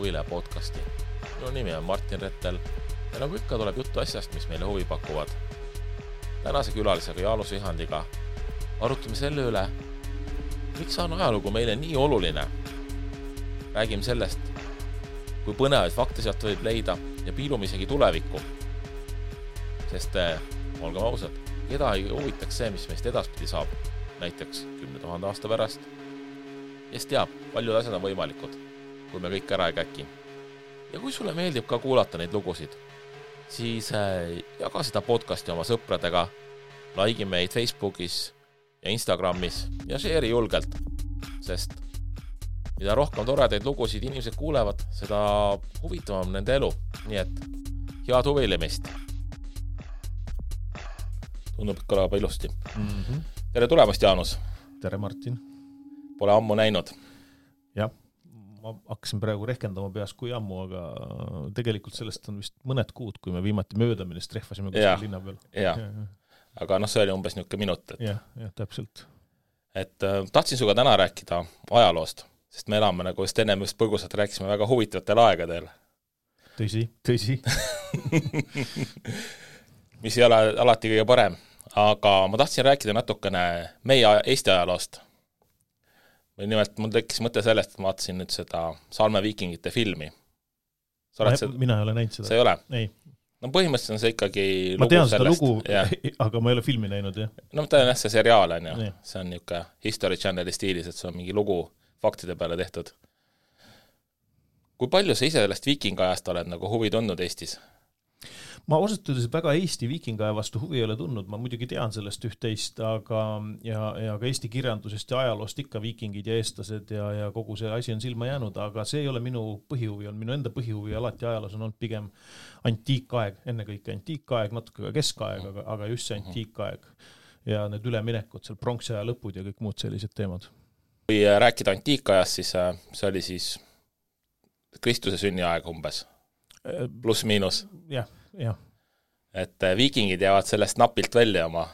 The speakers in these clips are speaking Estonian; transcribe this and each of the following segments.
Huvile podcasti. Minu nimi on Martin Rettel ja nagu ikka tuleb juttu asjast, mis meile huvi pakuvad. Tänase külalisega Jaanus Vihandiga arutame selle üle, miks on ajalugu meile nii oluline. Räägime sellest, kui põnevaid fakte sealt võib leida ja piilume isegi tulevikku. Sest, olgem ausad, keda ei huvitaks see, mis meist edaspidi saab, näiteks 10 000 aasta pärast. Kes teab, paljud asjad on võimalikud, kui me kõik ära ei käki. Ja kui sulle meeldib ka kuulata neid lugusid, siis jaga seda podcasti oma sõpradega, like meid Facebookis ja Instagramis ja share julgelt, sest mida rohkem toredaid lugusid inimesed kuulevad, seda huvitavam nende elu. Nii et head huvilemist. Tundub, et kõlab ilusti. Tere tulemast, Jaanus. Tere, Martin. Pole ammu näinud. Jah, ma hakkasin praegu rehkendama peas kui ammu, aga tegelikult sellest on vist mõned kuud, kui me viimati möödamine trehvasime kuskil linna peal. Ja. Aga see oli umbes niuke minut. Ja, täpselt. Et tahtsin suga täna rääkida ajaloost, sest me elame nagu just ennem just põgusalt rääkisime väga huvitavatel aegadel. Tõsi. Mis ei ole alati kõige parem, aga ma tahtsin rääkida natukene meie Eesti ajaloost. Nimelt mul tekkis mõte sellest, et ma vaatasin nüüd seda Salme viikingite filmi. Mina ei ole näinud seda. See ei ole? Ei. No põhimõtteliselt on see ikkagi ma lugu tean sellest. Lugu, aga ma ei ole filmi näinud, jah. No ta on see seriaal, on ju. See on niuke History Channeli stiilis, et see on mingi lugu faktide peale tehtud. Kui palju sa ise sellest viikingajast oled nagu huvi tundnud Eestis? Ma osutades väga Eesti viikingaja vastu huvi ei ole tundnud, ma muidugi tean sellest üht-teist, aga ja ka Eesti kirjandusest ja ajaloost ikka viikingid ja eestlased ja kogu see asi on silma jäänud, aga see ei ole minu põhihuvi, on minu enda põhihuvi alati ajaloos on olnud pigem antiikaeg, ennekõike antiikaeg, natuke ka keskaeg, aga just see antiikaeg ja need üleminekud, seal pronksaja lõpud ja kõik muud sellised teemad. Kui rääkida antiikajast, siis see oli siis Kristuse sünniaeg umbes, pluss miinus. Jah. Et viikingid jäävad sellest napilt välja oma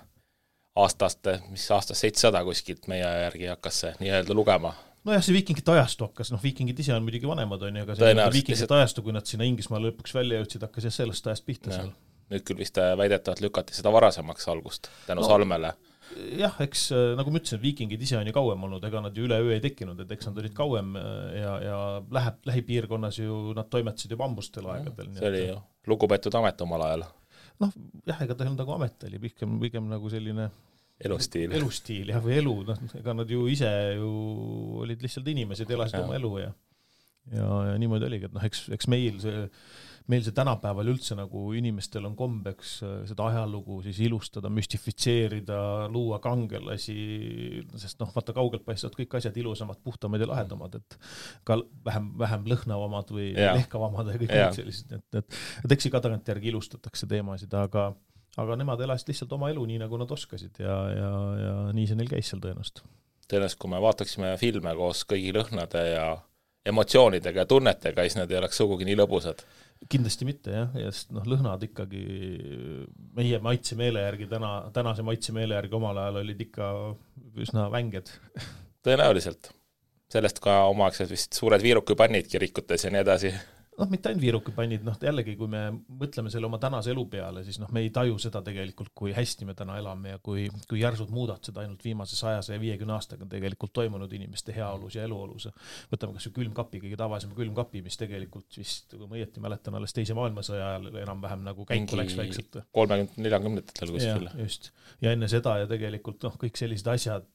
aastast 700 kuskilt meie järgi hakkas see nii-öelda lugema. Nojah, see viikingite ajastu hakkas, viikingid ise on muidugi vanemad, aga see viikingite ajastu, kui nad sinna Inglismaale lõpuks välja jõudsid, hakkas sellest ajast pihta seal. Nüüd küll vist väidetavalt lükati seda varasemaks algust tänu Salmele. Jah, eks nagu ma ütlesin, viikingid ise on ju kauem olnud, ega nad ju üleöö ei tekkinud, et eks nad olid kauem ja lähipiirkonnas ju nad toimetasid juba ambustel aegadel. See oli ju lugupeetud amet omal ajal. Jah, ega ta nagu amet oli, pigem nagu selline elustiil jah, või elu, ega nad ju ise ju olid lihtsalt inimesed, elasid oma elu ja niimoodi oligi, et eks meil see tänapäeval üldse nagu inimestel on kombeks seda ajalugu siis ilustada, müstifitseerida, luua kangelasi, sest vaata kaugelt paistavad kõik asjad ilusamad, puhtamad ja lahedamad, et ka vähem lõhnavamad või lehkavamad ja kõik sellised, et eks ka tagantjärgi ilustatakse teemasid, aga nemad elasid lihtsalt oma elu nii, nagu nad oskasid ja nii see neil käis seal tõenäoliselt. Tõenäoliselt, kui me vaataksime filme koos kõigi lõhnade ja emotsioonidega ja tunnetega, siis need ei oleks sugugi nii lõbusad. Kindlasti mitte, jah, sest lõhnad ikkagi meie maitsemeele järgi, tänase maitsemeele järgi omal ajal olid ikka üsna vänged. Tõenäoliselt. Sellest ka omaaegselt vist suured viirukipannid kirikutes ja nii edasi. Mitte ainult viirukipannid, jällegi, kui me mõtleme selle oma tänase elu peale, siis me ei taju seda tegelikult, kui hästi me täna elame ja kui järsud muudatused ainult viimase 150 aastaga tegelikult toimunud inimeste heaolus ja eluolus. Võtame kas ju külmkapi, kõige tavalisem külmkapi, mis tegelikult vist, kui ma õieti mäletan, alles teise maailmasõja ajal enam-vähem nagu käiku läks väikselt. 30-40-ndatel kuskil. Just. Ja enne seda ja tegelikult kõik sellised asjad,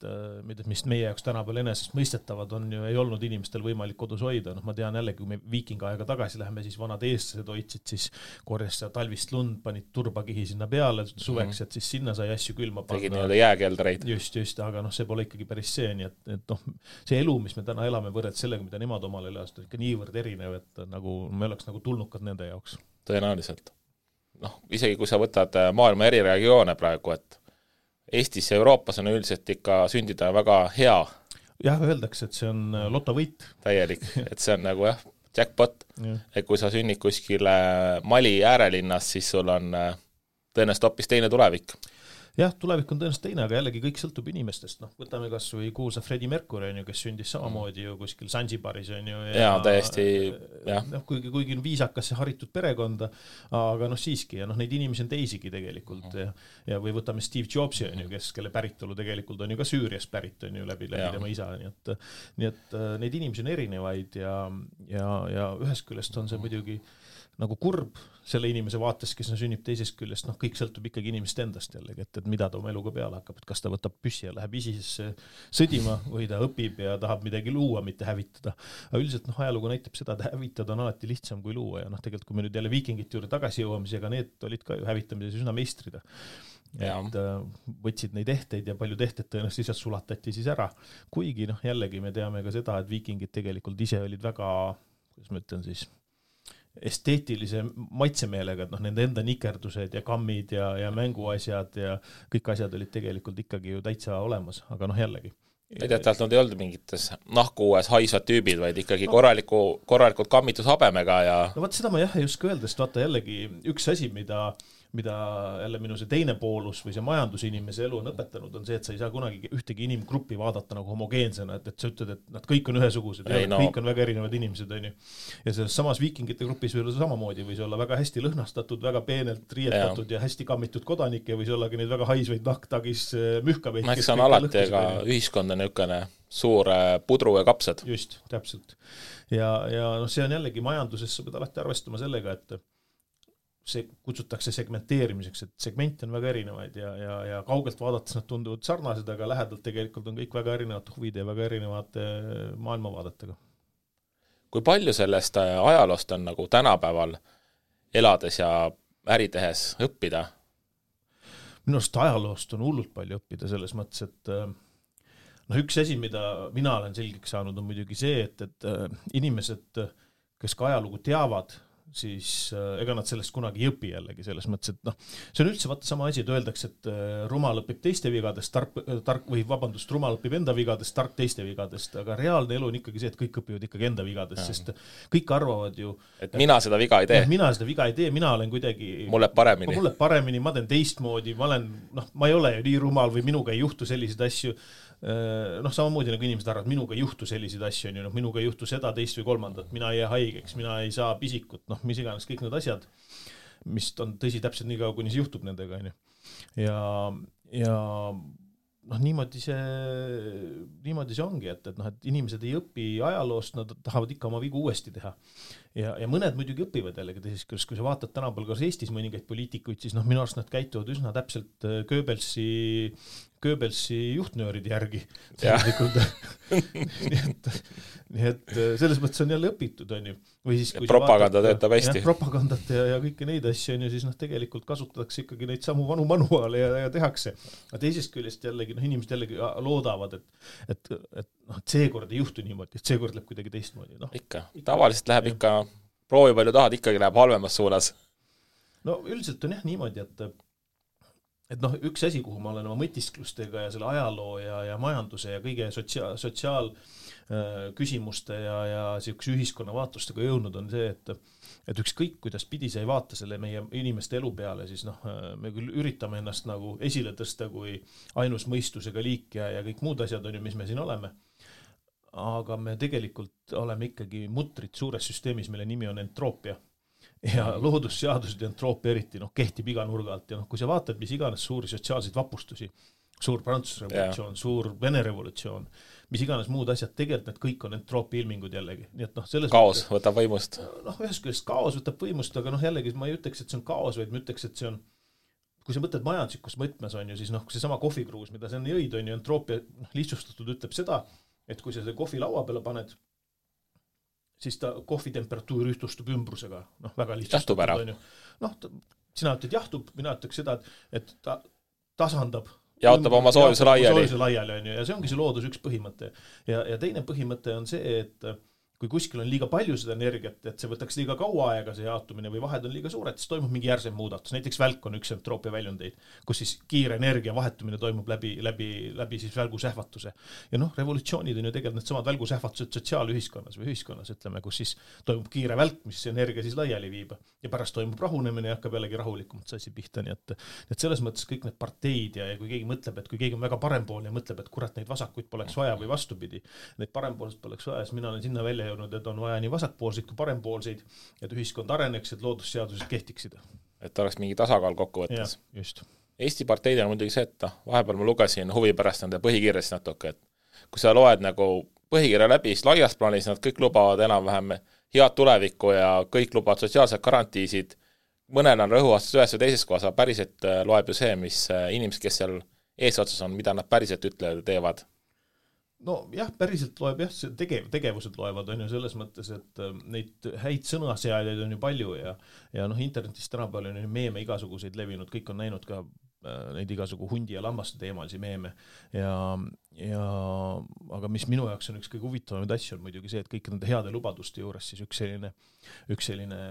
mis meie jaoks tänapäeval enesest mõistetavad on ju, ei olnud inimestel võimalik kodus hoida. Ma tean jälle, kui me viikingaega tagasi läheme, siis vanad eestlased hoidsid, siis korjas talvist lund, panid turbakihi sinna peale suveks, et siis sinna sai asju külma panna. Tegid nii-öelda jääkeldreid. Just, aga see pole ikkagi päris see, nii et see elu, mis me täna elame võrreld sellega, mida nemad omal elas, on ikka niivõrd erinev, et nagu me oleks nagu tulnukad nende jaoks. Tõenäoliselt. Isegi kui sa võtad maailma eri regioone praegu, et Eestis ja Euroopas on üldiselt ikka sündida väga hea. Jah, öeldakse, et see on lotovõit. Täielik, et see on nagu jackpot, et kui sa sünnid kuskile Mali äärelinnas, siis sul on tõenäoliselt hoopis teine tulevik. jah, tulevik on tõenäoliselt teine, aga jällegi kõik sõltub inimestest, noh, võtame kas või kuulsa Freddie Mercury on ju, kes sündis samamoodi ju kuskil Zanzibaris on ju. Ja täiesti, jah. Noh, kuigi on viisakas ja haritud perekonda, aga noh, siiski, ja noh, neid inimesi on teisigi tegelikult ja või võtame Steve Jobsi on ju, kelle päritolu tegelikult on ju ka Süüriast pärit on ju läbi tema isa, nii et neid inimesi on erinevaid ja ühest küljest on see muidugi nagu kurb selle inimese vaates, kes sünnib teisest küljest, noh, kõik sõltub ikkagi inimest endast jällegi, et mida ta oma eluga peale hakkab, et kas ta võtab püssi ja läheb ISISesse sõdima või ta õpib ja tahab midagi luua, mitte hävitada. Aga üldiselt noh, ajalugu näitab seda, et hävitada on alati lihtsam kui luua ja noh, tegelikult kui me nüüd jälle viikingite juurde tagasi jõuame, siis ega need olid ka ju hävitamises üsna meistrid. Et võtsid neid ehteid ja palju tehted tõenäoliselt lihtsalt sulatati siis ära. Kuigi noh, jällegi me teame ka seda, et viikingid tegelikult ise olid väga, kuidas ma ütlen siis, esteetilise maitsemeelega, et noh, nende enda nikerdused ja kammid ja mänguasjad ja kõik asjad olid tegelikult ikkagi ju täitsa olemas, aga noh, jällegi. Tähendab, nad ei olnud mingites nahkuues haisvad tüübid, vaid ikkagi korralikult kammitus habemega ja... No vaat seda ma jah ei oska öelda, sest vaata jällegi üks asi, mida jälle minu see teine poolus või see majandusinimese elu on õpetanud, on see, et sa ei saa kunagi ühtegi inimgruppi vaadata nagu homogeensena, et sa ütled, et nad kõik on ühesugused, kõik on väga erinevad inimesed, on ju. Ja selles samas viikingite grupis võis olla samamoodi, võis olla väga hästi lõhnastatud, väga peenelt riietatud ja hästi kammitud kodanikke, võis olla ka neid väga haisvaid nahktagis mühkabeid. Eks on alati ka ühiskond on niisugune suur pudru ja kapsad. Just, täpselt. Ja noh, see on jällegi majanduses, sa pead alati arvestama sellega, et see kutsutakse segmenteerimiseks, et segmente on väga erinevaid ja kaugelt vaadates nad tunduvad sarnased, aga lähedalt tegelikult on kõik väga erinevad huvid ja väga erinevad maailmavaadetega. Kui palju sellest ajaloost on nagu tänapäeval elades ja äri tehes õppida? Minu arust ajaloost on hullult palju õppida selles mõttes, et noh, üks asi, mida mina olen selgeks saanud, on muidugi see, et inimesed, kes ka ajalugu teavad, siis ega nad sellest kunagi ei õpi jällegi selles mõttes, et noh, see on üldse vaata sama asi, et öeldakse, et rumal õpib teiste vigadest, rumal õpib enda vigadest, tark teiste vigadest, aga reaalne elu on ikkagi see, et kõik õpivad ikkagi enda vigadest, sest kõik arvavad ju, et mina seda viga ei tee. Mina seda viga ei tee, mina olen kuidagi mulle paremini, ma teen teistmoodi, ma ei ole ju nii rumal või minuga ei juhtu selliseid asju. Noh, samamoodi nagu inimesed arvavad, minuga ei juhtu selliseid asju, noh, minuga ei juhtu seda, teist või kolmandat, mina ei jää haigeks, mina ei saa pisikut, noh, mis iganes kõik need asjad, mis on tõsi täpselt nii kaua, kuni see juhtub nendega, on ju. Ja noh, niimoodi see ongi, et inimesed ei õpi ajaloost, nad tahavad ikka oma vigu uuesti teha. Ja mõned muidugi õpivad jällegi teisest, kui sa vaatad tänapäeval ka Eestis mõningaid poliitikuid, siis noh, minu arust nad käituvad üsna täpselt Goebbelsi juhtnööride järgi. nii et selles mõttes on jälle õpitud, on ju. Või siis, kui propaganda töötab hästi. Propagandat ja kõiki neid asju, on ju, siis noh, tegelikult kasutatakse ikkagi neid samu vanu manuaale ja tehakse. Aga teisest küljest jällegi, noh, inimesed jällegi loodavad, et seekord ei juhtu niimoodi, et seekord läheb kuidagi teistmoodi. No, ikka. Tavaliselt läheb ikka, proovi palju tahad, ikkagi läheb halvemas suunas. No üldiselt on jah niimoodi, et noh, üks asi, kuhu ma olen oma mõtisklustega ja selle ajaloo ja majanduse ja kõige sotsiaal küsimuste ja siukse ühiskonna vaatustega jõudnud on see, et ükskõik kuidas pidi sa ei vaata selle meie inimeste elu peale, siis noh, me küll üritame ennast nagu esile tõsta kui ainus mõistusega liik ja kõik muud asjad on ju, mis me siin oleme. Aga me tegelikult oleme ikkagi mutrid suures süsteemis, mille nimi on entroopia. Ja loodusseadused ja entroopia eriti kehtib iga nurga alt ja kui sa vaatad, mis iganes suuri sotsiaalseid vapustusi, suur Prantsuse revolutsioon, suur Vene revolutsioon, mis iganes muud asjad, tegelikult need kõik on entroopia ilmingud jällegi. Nii et selles kaos võtab võimust. Ühest küljest kaos võtab võimust, aga jällegi ma ei ütleks, et see on kaos, vaid ma ütleks, et see on, kui sa mõtled majanduslikus mõtmes on ju, siis kui see sama kohvikruus, mida see on jõid, on ju, entroopia lihtsustatud ütleb seda, et kui sa see kohvi laua peale paned, siis ta kohvi temperatuur ühtustub ümbrusega. Väga lihtsalt. Jahtub ära. Sina ütled jahtub, mina ütleks seda, et ta tasandab. Jaotab oma soojuse laiali. On ju, ja see ongi see loodus üks põhimõte. Ja teine põhimõte on see, et kui kuskil on liiga palju seda energiat, et see võtaks liiga kaua aega see jaotumine või vahed on liiga suured, siis toimub mingi järsem muudatus. Näiteks välk on üks entroopia väljundeid, kus siis kiire energia vahetumine toimub läbi siis välgusähvatuse. Ja noh, revolutsioonid on ju tegelikult need samad välgusähvatused sotsiaalühiskonnas või ühiskonnas, ütleme, kus siis toimub kiire välk, mis energia siis laiali viib ja pärast toimub rahunemine ja hakkab jällegi rahulikumalt see asi pihta, nii et selles mõttes kõik need parteid ja kui keegi mõtleb, et kui keegi on väga parempoolne ja mõtleb, et kurat neid vasakuid poleks vaja või vastupidi, neid parempoolseid poleks vaja, siis mina olen sinna välja jõudnud, et on vaja nii vasakpoolseid kui parempoolseid, et ühiskond areneks, et loodusseadused kehtiksid. Et oleks mingi tasakaal kokku võttes. Ja, just. Eesti parteid on muidugi see, et vahepeal ma lugesin huvi pärast nende põhikirjast natuke, et kui sa loed nagu põhikirja läbi, siis laias plaanis nad kõik lubavad enam-vähem head tulevikku ja kõik lubavad sotsiaalsed garantiisid. Mõnel on rõhuastus ühes või teises kohas, aga päriselt loeb ju see, mis inimesed, kes seal eesotsas on, mida nad päriselt ütlevad ja teevad. No jah, päriselt loeb jah, tegevused loevad on ju selles mõttes, et neid häid sõnasääjaid on ju palju ja noh, internetis tänapäeval on ju meeme igasuguseid levinud, kõik on näinud ka neid igasugu hundi ja lammaste teemalisi meeme aga mis minu jaoks on üks kõige huvitavamaid asju on muidugi see, et kõik nende heade lubaduste juures siis üks selline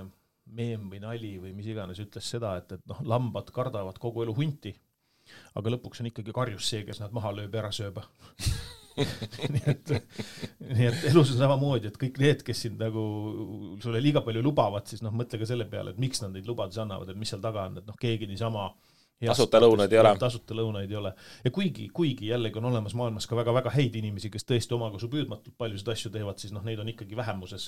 meem või nali või mis iganes ütles seda, et noh, lambad kardavad kogu elu hunti, aga lõpuks on ikkagi karjus see, kes nad maha lööb ja ära sööb. nii et elus on samamoodi, et kõik need, kes sind nagu sulle liiga palju lubavad, siis noh, mõtle ka selle peale, et miks nad neid lubadusi annavad, et mis seal taga on, et noh, keegi niisama tasuta lõunaid ei ole. Ja kuigi jällegi on olemas maailmas ka väga-väga häid inimesi, kes tõesti omakosu püüdmatult paljusid asju teevad, siis noh, neid on ikkagi vähemuses.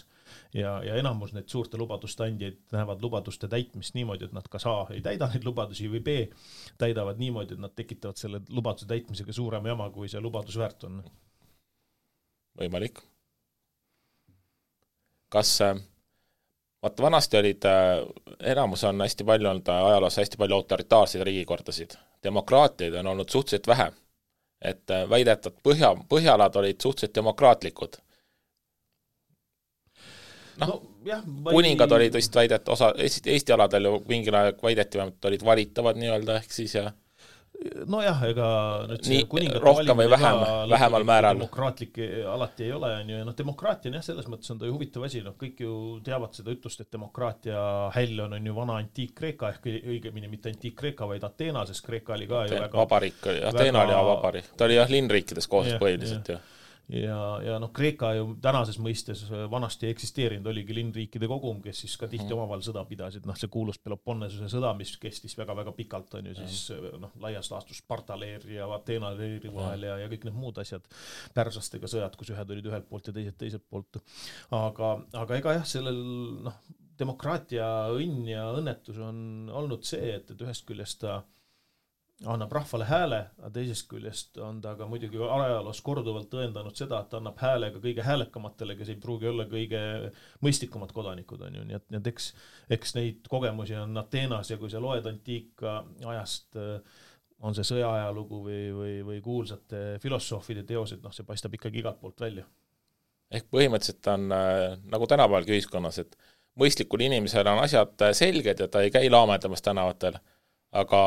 Ja enamus need suurte lubaduste andjaid näevad lubaduste täitmist niimoodi, et nad kas A ei täida neid lubadusi või B täidavad niimoodi, et nad tekitavad selle lubaduse täitmisega suurema jama, kui see lubadus väärt on. Võimalik. Kas vaata, vanasti olid, enamus on hästi palju olnud ajaloos hästi palju autoritaarseid riigikordasid. Demokraatiaid on olnud suhteliselt vähe. Et väidetud põhjalad olid suhteliselt demokraatlikud. No, kuningad olid vist väidet, osa Eesti aladel ju mingil aeg väideti, olid valitavad nii-öelda ehk siis ja nojah, ega nüüd see kuningate rohkem või vähemal määral demokraatlik alati ei ole, on ju, ja noh, demokraatia on jah, selles mõttes on ta ju huvitav asi, noh, kõik ju teavad seda ütlust, et demokraatia häll on ju vana Antiik-Kreeka, ehk õigemini mitte Antiik-Kreeka, vaid Ateena, sest Kreeka oli ka ju väga vabarik, Ateena oli vabarik, ta oli jah linnriikides koos põhiliselt ju. Ja noh, Kreeka ju tänases mõistes vanasti eksisteerinud oligi linnriikide kogum, kes siis ka tihti omavahel sõda pidasid, noh see kuulus Peloponnesuse sõda, mis kestis väga-väga pikalt, on ju siis noh, laias laastus Sparta leeri ja Ateena leeri vahel ja kõik need muud asjad, pärslastega sõjad, kus ühed olid ühelt poolt ja teised teiselt poolt. Aga ega jah, sellel noh, demokraatia õnn ja õnnetus on olnud see, et ühest küljest ta annab rahvale hääle, aga teisest küljest on ta ka muidugi ajaloos korduvalt tõendanud seda, et annab hääle ka kõige häälekamatele, kes ei pruugi olla kõige mõistlikumad kodanikud, on ju. Nii et eks neid kogemusi on Ateenas ja kui sa loed antiika ajast, on see sõjaajalugu või kuulsate filosoofide teosed, noh see paistab ikkagi igalt poolt välja. Ehk põhimõtteliselt on nagu tänapäevalgi ühiskonnas, et mõistlikul inimesel on asjad selged ja ta ei käi laamedamas tänavatel, aga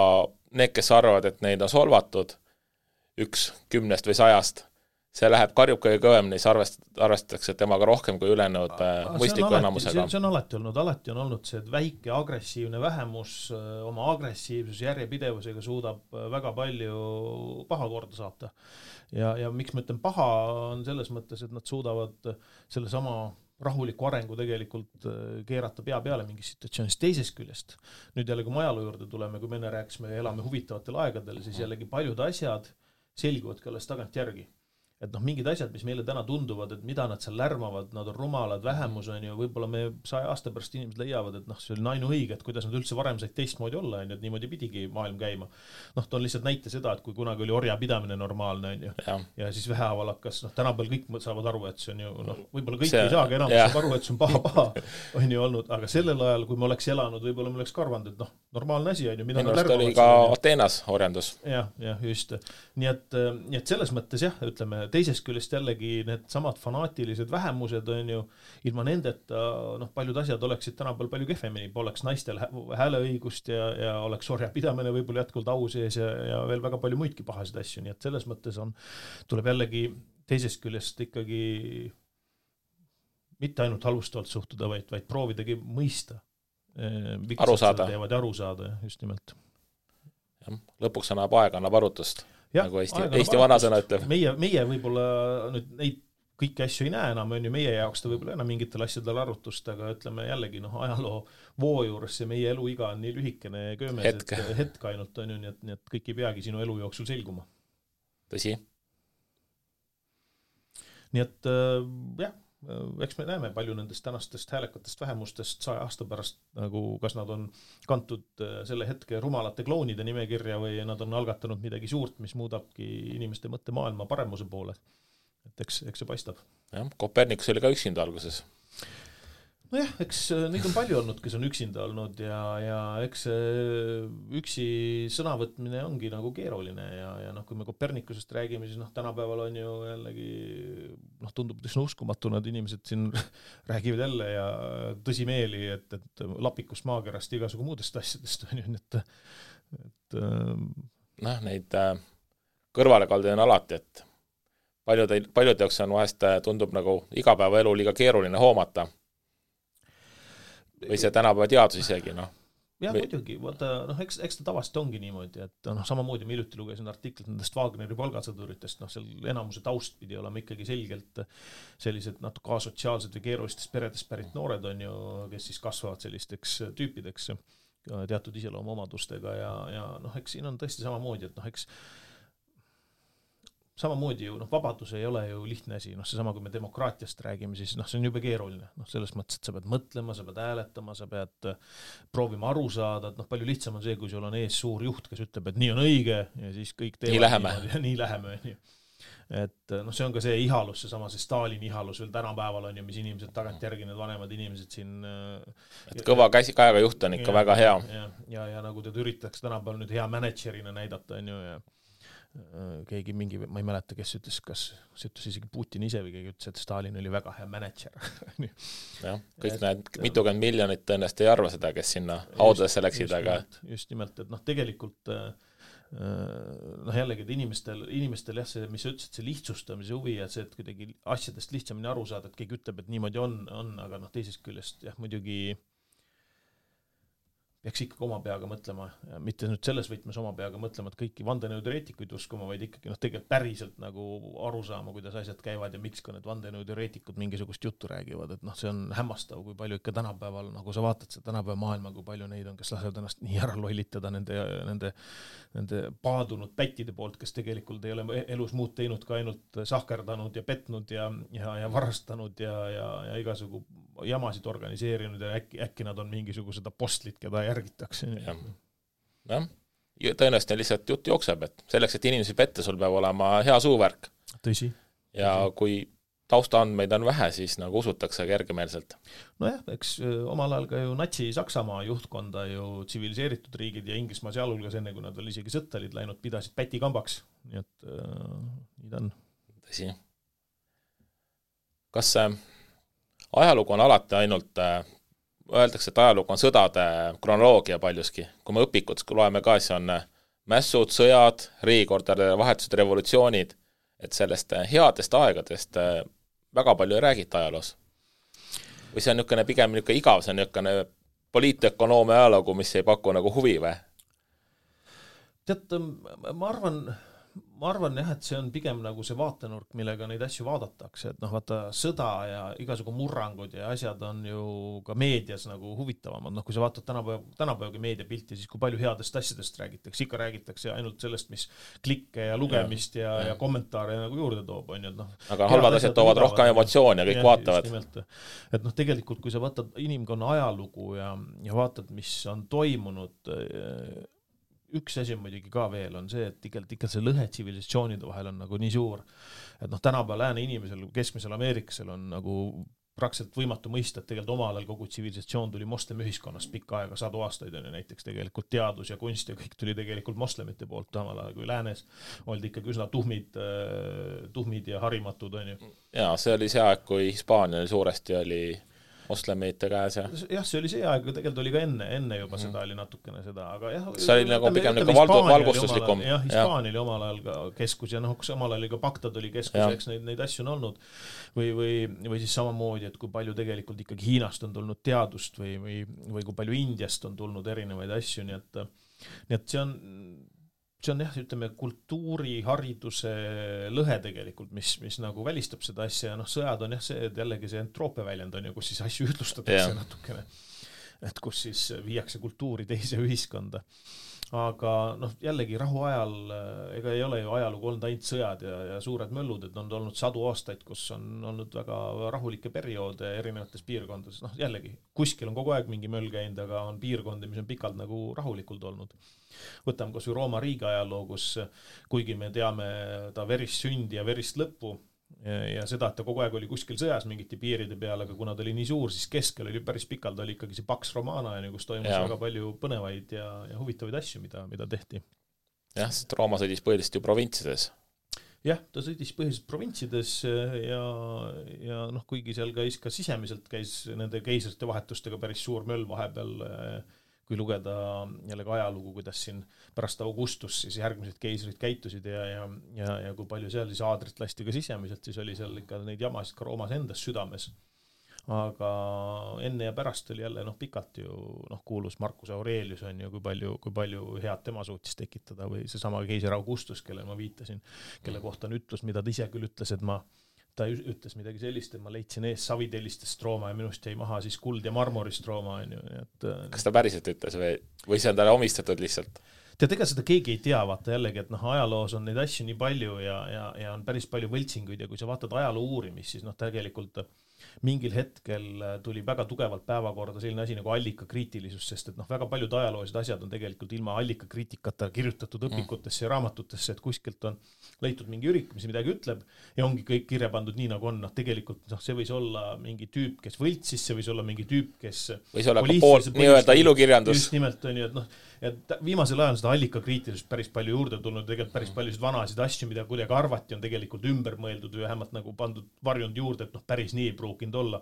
need, kes arvavad, et neid on solvatud 1 10 või 100, see läheb karjub kõige kõvemini, siis arvestatakse temaga rohkem kui ülejäänud mõistliku enamusega. See on alati olnud see, et väike agressiivne vähemus oma agressiivsus järjepidevusega suudab väga palju paha korda saata. Ja miks ma ütlen paha on selles mõttes, et nad suudavad selle sama rahuliku arengu tegelikult keerata pea peale mingis situatsioonis teisest küljest. Nüüd jälle, kui me ajaloo juurde tuleme, kui me enne rääkisime, elame huvitavatel aegadel, siis jällegi paljud asjad selguvad ka alles tagant järgi. Et noh, mingid asjad, mis meile täna tunduvad, et mida nad seal lärmavad, nad on rumalad, vähemus on ju, võib-olla me 100 aasta pärast inimesed leiavad, et noh, see oli ainuõige, et kuidas nad üldse varem said teistmoodi olla, on ju, et niimoodi pidigi maailm käima. Noh, ta on lihtsalt näite seda, et kui kunagi oli orja pidamine normaalne, on ju, ja siis vähehaaval hakkas, noh, tänapäeval kõik saavad aru, et see on ju, noh, võib-olla kõik ei saagi enam saab aru, et see on paha, on ju olnud, aga sellel ajal, kui me oleks elanud, võib-olla me oleks karvanud, et noh, normaalne asi on ju, mida nad lärmavad. Oli ka Ateenas orjandus. Ja, just. Nii et selles mõttes jah, ütleme, teisest küljest jällegi need samad fanaatilised vähemused on ju, ilma nendeta noh, paljud asjad oleksid tänapäeval palju kehvemini, poleks naistel hääleõigust ja oleks orja pidamine võib-olla jätkuvalt au sees ja veel väga palju muidki pahasid asju, nii et selles mõttes tuleb jällegi teisest küljest ikkagi mitte ainult halvustavalt suhtuda, vaid proovidagi mõista. Aru saada. Aru saada, just nimelt. Ja, lõpuks annab aeg, annab arutust, nagu Eesti vanasõna ütleb. Meie võib-olla nüüd neid kõiki asju ei näe enam, on ju meie jaoks ta võib-olla enam mingitel asjadel arutust, aga ütleme jällegi, ajaloo voo juures see meie eluiga on nii lühikene ja köömes, hetk ainult on ju, nii et kõik ei peagi sinu elu jooksul selguma. Tõsi. Nii et jah, eks me näeme palju nendest tänastest häälekatest vähemustest 100 aasta pärast, nagu kas nad on kantud selle hetke rumalate kloonide nimekirja või nad on algatanud midagi suurt, mis muudabki inimeste mõttemaailma paremuse poole. Et eks see paistab. Jah, Kopernikus oli ka üksinda alguses. Nojah, eks neid on palju olnud, kes on üksinda olnud ja eks üksi sõnavõtmine ongi nagu keeruline ja kui me Kopernikusest räägime, siis tänapäeval on ju jällegi tundub tõsna uskumatu, nad inimesed siin räägivad jälle ja tõsimeeli, et lapikust maakerast igasugu muudest asjadest on ju, et neid kõrvalekaldi on alati, et paljud jaoks on vahest tundub nagu igapäevaelu liiga keeruline hoomata. Või see tänapäeva teadus isegi, Jah, muidugi, eks ta tavaliselt ongi niimoodi, et samamoodi ma hiljuti lugesin artiklit nendest Wagneri palgasõduritest, seal enamuse taust pidi olema ikkagi selgelt sellised natuke asotsiaalsed või keerulistest peredest pärit noored on ju, kes siis kasvavad sellisteks tüüpideks teatud iseloomuomadustega ja eks siin on tõesti samamoodi, et eks samamoodi ju, vabadus ei ole ju lihtne asi, seesama, kui me demokraatiast räägime, siis see on jube keeruline, selles mõttes, et sa pead mõtlema, sa pead hääletama, sa pead proovima aru saada, et palju lihtsam on see, kui sul on ees suur juht, kes ütleb, et nii on õige ja siis kõik teevad nii läheme. Et see on ka see ihalus, see Stalini ihalus veel tänapäeval on ju, mis inimesed tagantjärgi, need vanemad inimesed siin et kõva käega juht on ikka väga hea. Ja nagu teda üritaks tänapäeval nüüd hea managerina näidata on ju ja keegi mingi, ma ei mäleta, kes ütles, kas see ütles isegi Putin ise või keegi ütles, et Stalin oli väga hea manager. Jah, kõik need mitukümmend miljonit tõenäoliselt ei arva seda, kes sinna haudadesse läksid, aga just nimelt, et tegelikult jällegi, et inimestel jah, see, mis sa ütlesid, see lihtsustamise huvi ja see, et kuidagi asjadest lihtsamini aru saada, et keegi ütleb, et niimoodi on, aga teisest küljest jah, muidugi peaks ikkagi oma peaga mõtlema, mitte nüüd selles võtmes oma peaga mõtlema, et kõiki vandenõuteoreetikuid uskuma, vaid ikkagi tegelikult päriselt nagu aru saama, kuidas asjad käivad ja miks ka need vandenõuteoreetikud mingisugust juttu räägivad, et see on hämmastav, kui palju ikka tänapäeval, nagu sa vaatad seda tänapäeva maailma, kui palju neid on, kes lasevad ennast nii ära lollitada nende paadunud pättide poolt, kes tegelikult ei ole elus muud teinud ka ainult sahkerdanud ja petnud ja varastanud ja igasugu jamasid organiseerinud ja äkki nad on mingisugused apostlid, keda järgitakse. Jah, tõenäoliselt lihtsalt jutt jookseb, et selleks, et inimesi pette, sul peab olema hea suuvärk. Tõsi. Ja kui taustaandmeid on vähe, siis nagu usutakse kergemeelselt. Nojah, eks omal ajal ka ju Natsi-Saksamaa juhtkonda ju tsiviliseeritud riigid ja Inglismaa sealhulgas enne, kui nad veel isegi sõtta olid läinud, pidasid pätikambaks. Nii et nii ta on. Tõsi. Kas ajalugu on alati ainult, öeldakse, et ajalugu on sõdade kronoloogia paljuski. Kui me õpikud loeme ka, siis on mässud, sõjad, riigikordade vahetused, revolutsioonid, et sellest headest aegadest väga palju ei räägita ajaloos. Või see on pigem igav, see on poliitökonoomia ajalugu, mis ei paku nagu huvi või? Tead, ma arvan jah, et see on pigem nagu see vaatenurk, millega neid asju vaadatakse, et vaata sõda ja igasugu murrangud ja asjad on ju ka meedias nagu huvitavamad, kui sa vaatad tänapäevagi meediapilti, siis kui palju headest asjadest räägitakse, ikka räägitakse ainult sellest, mis klikke ja lugemist ja kommentaare nagu juurde toob, on ju, aga halvad asjad toovad rohkem emotsiooni ja kõik vaatavad. Et tegelikult, kui sa vaatad inimkonna ajalugu ja vaatad, mis on toimunud, üks asi on muidugi ka veel on see, et ikka see lõhe tsivilisatsioonide vahel on nagu nii suur, et tänapäeval lääne inimesel, keskmisel Ameerikasel on nagu praktiliselt võimatu mõista, et tegelikult omal ajal kogu tsivilisatsioon tuli moslemi ühiskonnast pikka aega, 100 aastaid on ju näiteks tegelikult teadus ja kunst ja kõik tuli tegelikult moslemite poolt, omal ajal kui läänes oldi ikkagi üsna tuhmid ja harimatud on ju. Ja see oli see aeg, kui Hispaania suuresti oli moslemite käes ja jah, see oli see aeg, tegelikult oli ka enne juba seda oli natukene seda, aga jah, see oli nagu pigem nagu valgustuslikum. Jah, Hispaania oli omal ajal ka keskus ja samal ajal ka Bagdad oli keskus, eks neid asju on olnud või siis samamoodi, et kui palju tegelikult ikkagi Hiinast on tulnud teadust või kui palju Indiast on tulnud erinevaid asju, nii et see on jah, ütleme kultuuri, hariduse lõhe tegelikult, mis nagu välistab seda asja ja sõjad on jah see, et jällegi see entroopia väljend on ju, kus siis asju ütlustatakse natukene, et kus siis viiakse kultuuri teise ühiskonda. Aga jällegi rahu ajal, ega ei ole ju ajalugu olnud ainult sõjad ja suured möllud, et on olnud 100 aastaid, kus on olnud väga rahulikke perioode erinevates piirkondades. Jällegi, kuskil on kogu aeg mingi möll käinud, aga on piirkondi, mis on pikalt nagu rahulikult olnud. Võtame kas või Rooma riigi ajaloo, kus kuigi me teame ta verist sündi ja verist lõppu ja seda, et ta kogu aeg oli kuskil sõjas mingite piiride peal, aga kuna ta oli nii suur, siis keskel oli päris pikalt, oli ikkagi see Pax Romana, kus toimus väga palju põnevaid ja huvitavaid asju, mida tehti. Jah, sest Rooma sõdis põhiliselt ju provintsides. Jah, ta sõdis põhiliselt provintsides ja kuigi seal ka sisemiselt käis nende keisrite vahetustega päris suur möll vahepeal, kui lugeda jällegi ajalugu, kuidas siin pärast Augustus siis järgmised keisrid käitusid ja kui palju seal siis aadrit lasti ka sisemiselt, siis oli seal ikka neid jamasid ka Roomas endas südames. Aga enne ja pärast oli jälle pikalt ju kuulus Marcus Aurelius on ju, kui palju head tema suutis tekitada või seesama keiser Augustus, kelle ma viitasin, kelle kohta on ütlus, mida ta ise küll ütles, et ta ütles midagi sellist, et ma leidsin ees savitellistest Rooma ja minust jäi maha siis kuld ja marmorist Rooma. Kas ta päriselt ütles või see on talle omistatud lihtsalt? Ega seda keegi ei tea, vaata jällegi, et ajaloos on neid asju nii palju ja on päris palju võltsinguid ja kui sa vaatad ajaloo uurimist, siis tegelikult mingil hetkel tuli väga tugevalt päevakorda selline asi nagu allikakriitilisus, sest et väga paljud ajaloolised asjad on tegelikult ilma allikakriitikata kirjutatud õpikutesse ja raamatutesse, et kuskilt on leitud mingi ürik, mis midagi ütleb ja ongi kõik kirja pandud nii nagu on. Tegelikult see võis olla mingi tüüp, kes võltsis, see võis olla mingi tüüp, kes võis olla ka pool nii-öelda ilukirjandus. Just nimelt on ju, et viimasel ajal on seda allikakriitilisust päris palju juurde tulnud, tegelikult päris paljusid vanasid asju, mida kuidagi arvati, on tegelikult ümber mõeldud või vähemalt nagu pandud varjund juurde, et päris nii ei pruukinud olla.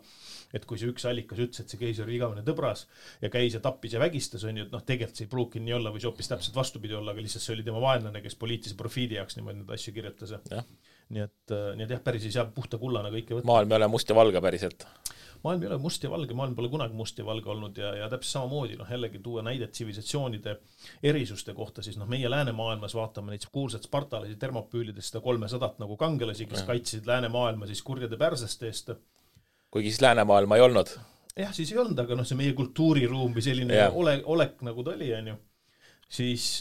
Et kui see üks allikas ütles, et see keisar oli igavene tõbras ja käis ja tappis ja vägistas, on ju, et tegelikult see ei pruukinud nii olla või see hoopis täpselt vastupidi olla, aga lihtsalt see oli tema vaenlane, kes poliitilise profiidi jaoks niimoodi neid asju kirjutas. Nii et jah, päris ei saa puhta kullana kõike võtta. Maailm ei ole must ja valge päriselt. Maailm ei ole must ja valge, maailm pole kunagi must ja valge olnud ja täpselt samamoodi, jällegi tuua näidet tsivilisatsioonide erisuste kohta, siis meie läänemaailmas vaatame neid kuulsad spartalasi termopüülidest seda 300 nagu kangelasi, kes kaitsesid läänemaailma siis kurjade pärsaste eest. Kuigi siis läänemaailma ei olnud. Jah, siis ei olnud, aga see meie kultuuriruum või selline olek nagu ta oli, on ju. Siis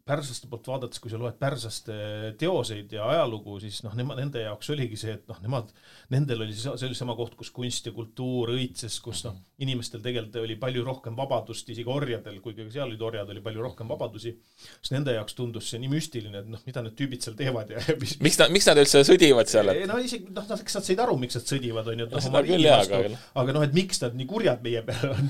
pärsaste poolt vaadates, kui sa loed pärsaste teoseid ja ajalugu, siis nende jaoks oligi see, et nendel oli see sama koht, kus kunst ja kultuur õitses, kus inimestel tegelikult oli palju rohkem vabadust, isegi orjadel, kuigi seal olid orjad, oli palju rohkem vabadusi, siis nende jaoks tundus see nii müstiline, et mida need tüübid seal teevad ja miks nad üldse sõdivad seal? Isegi, eks nad said aru, miks nad sõdivad, on ju, aga et miks nad nii kurjad meie peale on,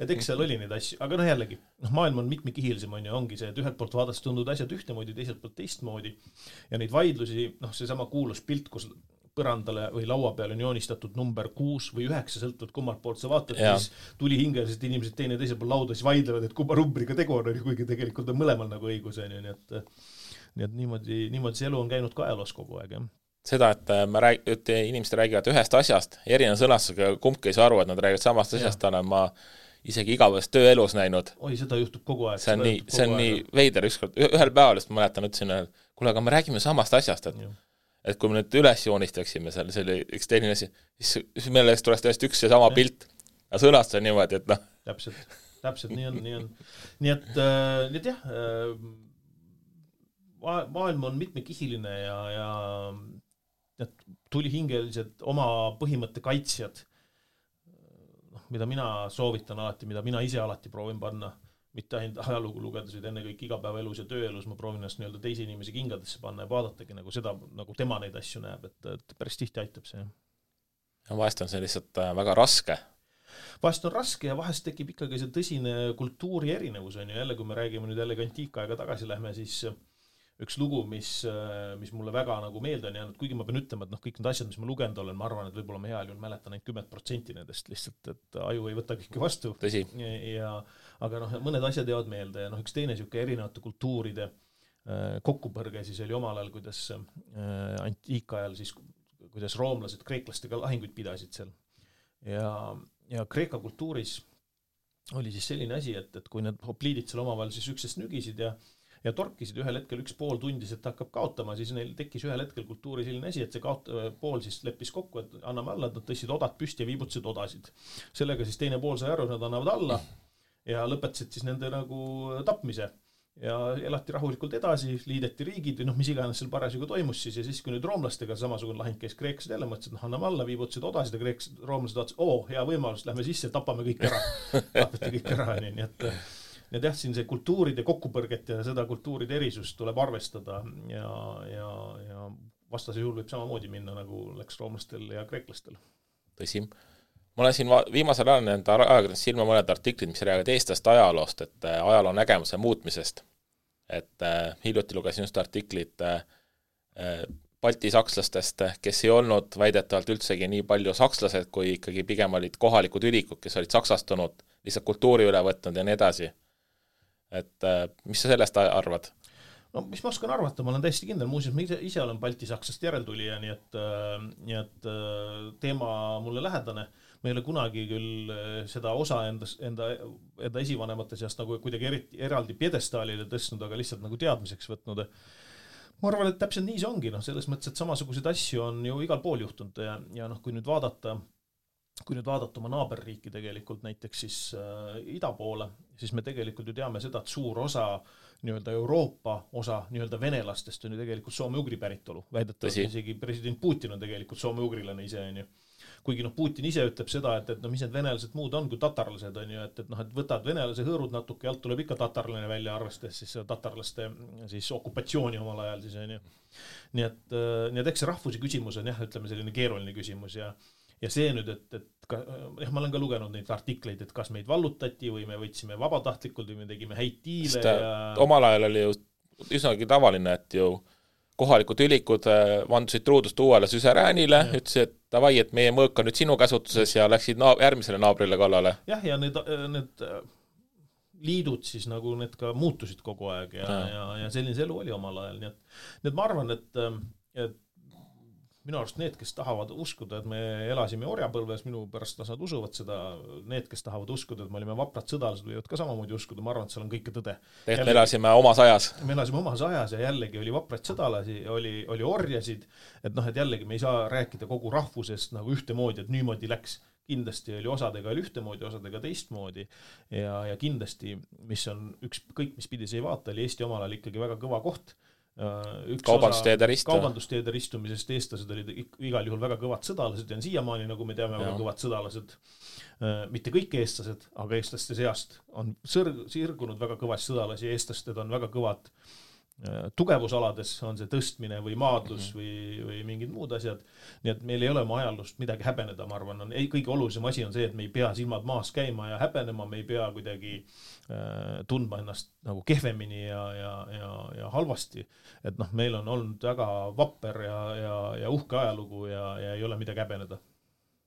et eks seal oli neid asju, aga jällegi, maailm on mitmekihilisem, on ju, ongi see, et ühelt poolt vaadates tunduvad asjad ühtemoodi, teiselt poolt teistmoodi ja neid vaidlusi, seesama kuulus pilt, kus põrandale või laua peale on joonistatud number 6 või 9, sõltuvalt kummalt poolt sa vaatad, siis tuli hingeliselt inimesed teine teisel pool lauda, siis vaidlevad, et kumma numbriga tegu on, kuigi tegelikult on mõlemal nagu õigus, on ju, nii et niimoodi see elu on käinud ka ajaloos kogu aeg, jah. Seda, et inimesed räägivad ühest asjast, erineva sõnastusega kumbki ei saa aru, et nad räägivad samast asjast, olen ma isegi igavest tööelus näinud. Oi, seda juhtub kogu aeg. See on nii veider ükskord. Ühel päeval, ma mäletan, ütlesin, kuule, aga me räägime samast asjast, et kui me nüüd üles joonistaksime seal, see oli üks teine asi, siis meile tuleks tõesti üks ja sama pilt ja sõnastus on niimoodi, et Täpselt, nii on. Nii et jah, maailm on mitmekihiline ja tulihingelised oma põhimõtte kaitsjad, mida mina soovitan alati, mida mina ise alati proovin panna, mitte ainult ajalugu lugedes, enne kõik igapäevaelus ja tööelus, ma proovin ennast nii-öelda teise inimese kingadesse panna ja vaadatagi nagu seda, nagu tema neid asju näeb, et päris tihti aitab see. Ja vahest on see lihtsalt väga raske. Vahest on raske ja vahest tekib ikkagi see tõsine kultuuri erinevus, on ju, jälle kui me räägime nüüd jällegi antiikaega tagasi lähme, siis üks lugu, mis mulle väga nagu meelde on jäänud, kuigi ma pean ütlema, et kõik need asjad, mis ma lugenud olen, ma arvan, et võib-olla ma heal juhul mäletan ainult 10% nendest lihtsalt, et aju ei võta kõike vastu. Tõsi. Aga mõned asjad jäävad meelde ja üks teine siuke erinevate kultuuride kokkupõrge siis oli omal ajal, kuidas antiikajal siis, kuidas roomlased kreeklastega lahinguid pidasid seal. Ja Kreeka kultuuris oli siis selline asi, et kui need hopliidid seal omavahel siis üksest nügisid ja torkisid ühel hetkel üks pool tundis, et hakkab kaotama, siis neil tekkis ühel hetkel kultuuri selline asi, et see pool siis leppis kokku, et anname alla, et nad tõstsid odad püsti ja viibutasid odasid. Sellega siis teine pool sai aru, nad annavad alla ja lõpetasid siis nende nagu tapmise. Ja elati rahulikult edasi, liideti riigid või mis iganes seal parasjagu toimus siis ja siis kui nüüd roomlastega samasugune lahing käis, kreeklased jälle mõtlesid, et anname alla, viibutasid odasid ja roomlased vaatasid, hea võimalus, lähme sisse, tapame kõik ära. Tapeti kõik ära, nii et ja siin see kultuuride kokkupõrget ja seda kultuuride erisust tuleb arvestada ja vastase juhul võib samamoodi minna, nagu läks roomlastel ja kreeklastel. Tõsi. Ma olen siin viimasel ajal nende ajakirjandus silma mõned artiklid, mis räägivad eestlaste ajaloost, et ajaloo nägemuse muutmisest. Et hiljuti lugesin just artiklit Balti sakslastest, kes ei olnud väidetavalt üldsegi nii palju sakslased, kui ikkagi pigem olid kohalikud ülikud, kes olid saksastunud, lihtsalt kultuuri üle võtnud ja nii edasi. Et mis sa sellest arvad? No mis ma oskan arvata, ma olen täiesti kindel, muuseas ma ise olen Balti-Saksast järeltulija, nii et teema mulle lähedane. Ma ei ole kunagi küll seda osa enda esivanemate seast nagu kuidagi eraldi piedestaalile tõstnud, aga lihtsalt nagu teadmiseks võtnud. Ma arvan, et täpselt nii see ongi, selles mõttes, et samasugused asju on ju igal pool juhtunud ja kui nüüd vaadata oma naaberriiki tegelikult näiteks siis ida poole, siis me tegelikult ju teame seda, et suur osa nii-öelda Euroopa osa nii-öelda venelastest on ju tegelikult soome-ugri päritolu. Väidetavalt isegi president Putin on tegelikult soome-ugrilane ise on ju. Kuigi Putin ise ütleb seda, et mis need venelased muud on kui tatarlased on ju, et võtad venelase hõõrud natuke ja alt tuleb ikka tatarlane välja arvestades siis tatarlaste siis okupatsiooni omal ajal siis on ju. Nii et eks see rahvuse küsimus on ütleme selline keeruline küsimus ja see nüüd, et ma olen ka lugenud neid artikleid, et kas meid vallutati või me võtsime vabatahtlikult või me tegime häid tiile. Omal ajal oli ju üsnagi tavaline, et ju kohalikud ülikud vandusid truudust uuele süseräänile, ütlesid, et davai, et meie mõõk on nüüd sinu käsutuses ja läksid järgmisele naabrile kallale. Jah, ja need liidud siis nagu need ka muutusid kogu aeg ja selline elu oli omal ajal. Nii et ma arvan, et minu arust need, kes tahavad uskuda, et me elasime orjapõlves, minu pärast nad usuvad seda, need, kes tahavad uskuda, et me olime vaprad sõdalased, võivad ka samamoodi uskuda, ma arvan, et seal on kõike tõde. Me elasime omas ajas. Me elasime omas ajas ja jällegi oli vapraid sõdalasi, oli orjasid, et jällegi me ei saa rääkida kogu rahvusest nagu ühtemoodi, et niimoodi läks. Kindlasti oli osadega ühtemoodi, osadega teistmoodi ja kindlasti, mis on kõik, mis pidi see ei vaata, oli Eesti omal ajal ikkagi väga kõva koht. Kaubandusteede ristumisest eestlased olid igal juhul väga kõvad sõdalased ja siiamaani, nagu me teame, väga kõvad sõdalased. Mitte kõik eestlased, aga eestlaste seast on sirgunud väga kõvas sõdalasi ja eestlased on väga kõvad tugevusalades, on see tõstmine või maadlus või mingid muud asjad. Nii et meil ei ole oma ajalust midagi häbeneda, ma arvan. Kõige olulisem asi on see, et me ei pea silmad maas käima ja häbenema, me ei pea kuidagi tundma ennast nagu kehvemini ja halvasti. Et meil on olnud väga vapper ja uhke ajalugu ja ei ole midagi häbeneda.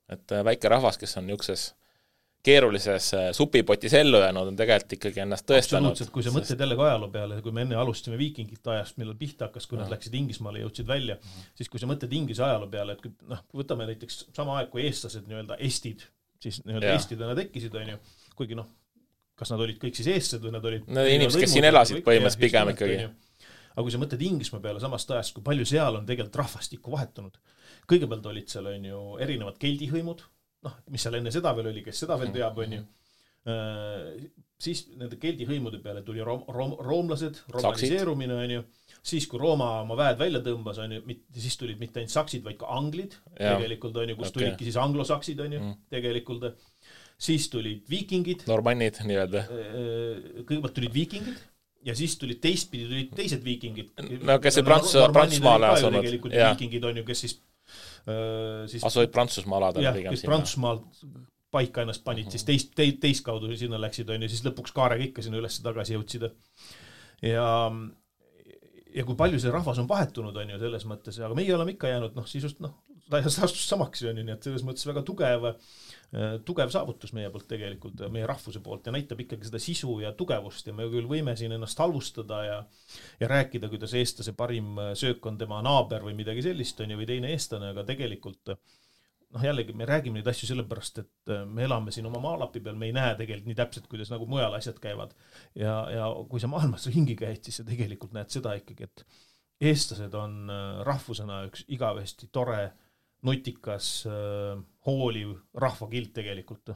Et väike rahvas, kes on niukses keerulises supipotis ellu jäänud, on tegelikult ikkagi ennast tõestanud. Absoluutselt, kui sa mõtled jälle ajaloo peale, kui me enne alustasime viikingite ajast, millal pihta hakkas, kui nad läksid Inglismaale ja jõudsid välja, siis kui sa mõtled Inglise ajaloo peale, et võtame näiteks sama aeg, kui eestlased nii-öelda estid, siis nii-öelda estidena tekkisid, on ju, kuigi kas nad olid kõik siis eestlased või nad olid inimesed, kes siin elasid põhimõtteliselt pigem ikkagi. Aga kui sa mõtled Inglismaa peale samast ajast, kui palju seal on tegelikult rahvastikku vahetunud. Kõigepealt olid seal on ju erinevad keldihõimud, mis seal enne seda veel oli, kes seda veel teab, on ju. Siis nende keldihõimude peale tuli roomlased, romaniseerumine, on ju. Siis, kui Rooma oma väed välja tõmbas, on ju, siis tulid mitte ainult saksid, vaid ka anglid, tegelikult, on ju, kus tulidki siis anglosaksid, on ju, tegelikult. Siis tulid viikingid. Normannid, nii-öelda. Kõigepealt tulid viikingid ja siis tulid teistpidi, tulid teised viikingid. No, kes see Prantsusmaale asunud. Tegelikult viikingid on ju, kes siis asuid Prantsusmaa alad. Jah, kes Prantsusmaal paika ennast panid, siis teist kaudu sinna läksid, on ju, siis lõpuks kaarega ikka sinna üles tagasi jõudsid. ja kui palju see rahvas on vahetunud, on ju, selles mõttes, aga meie oleme ikka jäänud, sisust, astus samaks, on ju, nii et selles mõttes väga tugev saavutus meie poolt tegelikult, meie rahvuse poolt ja näitab ikkagi seda sisu ja tugevust ja me küll võime siin ennast halvustada ja rääkida, kuidas eestlase parim söök on tema naaber või midagi sellist, on ju, või teine eestlane, aga tegelikult jällegi me räägime neid asju sellepärast, et me elame siin oma maalapi peal, me ei näe tegelikult nii täpselt, kuidas nagu mujal asjad käivad. Ja kui sa maailmas ringi käid, siis sa tegelikult näed seda ikkagi, et eestlased on rahvusena üks igavesti tore, nutikas, hooliv rahvakilt tegelikult.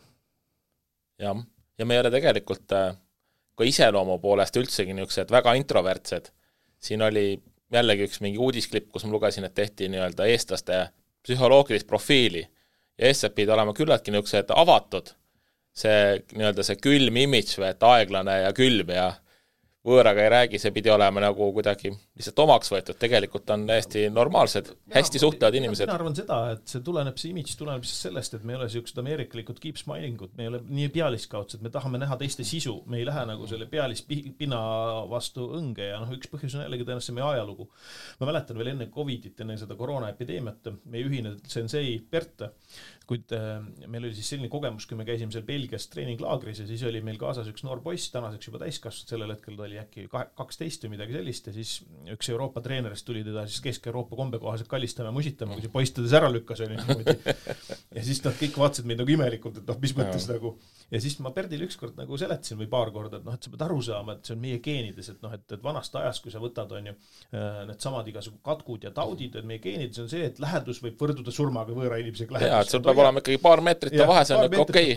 Ja me ei ole tegelikult ka iseloomu poolest üldsegi niisugused väga introvertsed. Siin oli jällegi üks mingi uudisklipp, kus ma lugesin, et tehti nii-öelda eestlaste psühholoogilist profiili ja eestlased pidi olema küllaltki niisugused avatud. See nii-öelda see külm imidž või et aeglane ja külm ja võõraga ei räägi, see pidi olema nagu kuidagi lihtsalt omaks võetud, tegelikult on täiesti normaalsed, hästi suhtlevad inimesed. Mina arvan seda, et see imidž tuleneb sellest, et me ei ole siuksed ameerikalikud keep smilingud, me ei ole nii pealiskaudsed, me tahame näha teiste sisu, me ei lähe nagu selle pealispina vastu õnge ja üks põhjus on jällegi tõenäoliselt meie ajalugu. Ma mäletan veel enne Covidit, enne seda koroonaepideemiat, meie ühine sensei Bert, kuid meil oli siis selline kogemus, kui me käisime seal Belgias treeninglaagris ja siis oli meil kaasas üks noor poiss, tänaseks juba täiskasvanud, sellel hetkel ta oli äkki 12 või midagi sellist ja siis üks Euroopa treenerist tuli teda siis Kesk-Euroopa kombekohaselt kallistama ja musitama, kui see poiss teda ära lükkas. Ja siis nad kõik vaatasid meid nagu imelikult, et mis mõttes nagu. Ja siis ma Perdile ükskord nagu seletasin või paar korda, et sa pead aru saama, et see on meie geenides, et vanast ajast, kui sa võtad, on ju, need samad igasugu katkud ja taudid, et meie geenides on see, et lähedus võib võrduda surmaga võõra inimesega lähedus. Jaa, et sul peab olema ikkagi paar meetrit ja vahe, see on okei.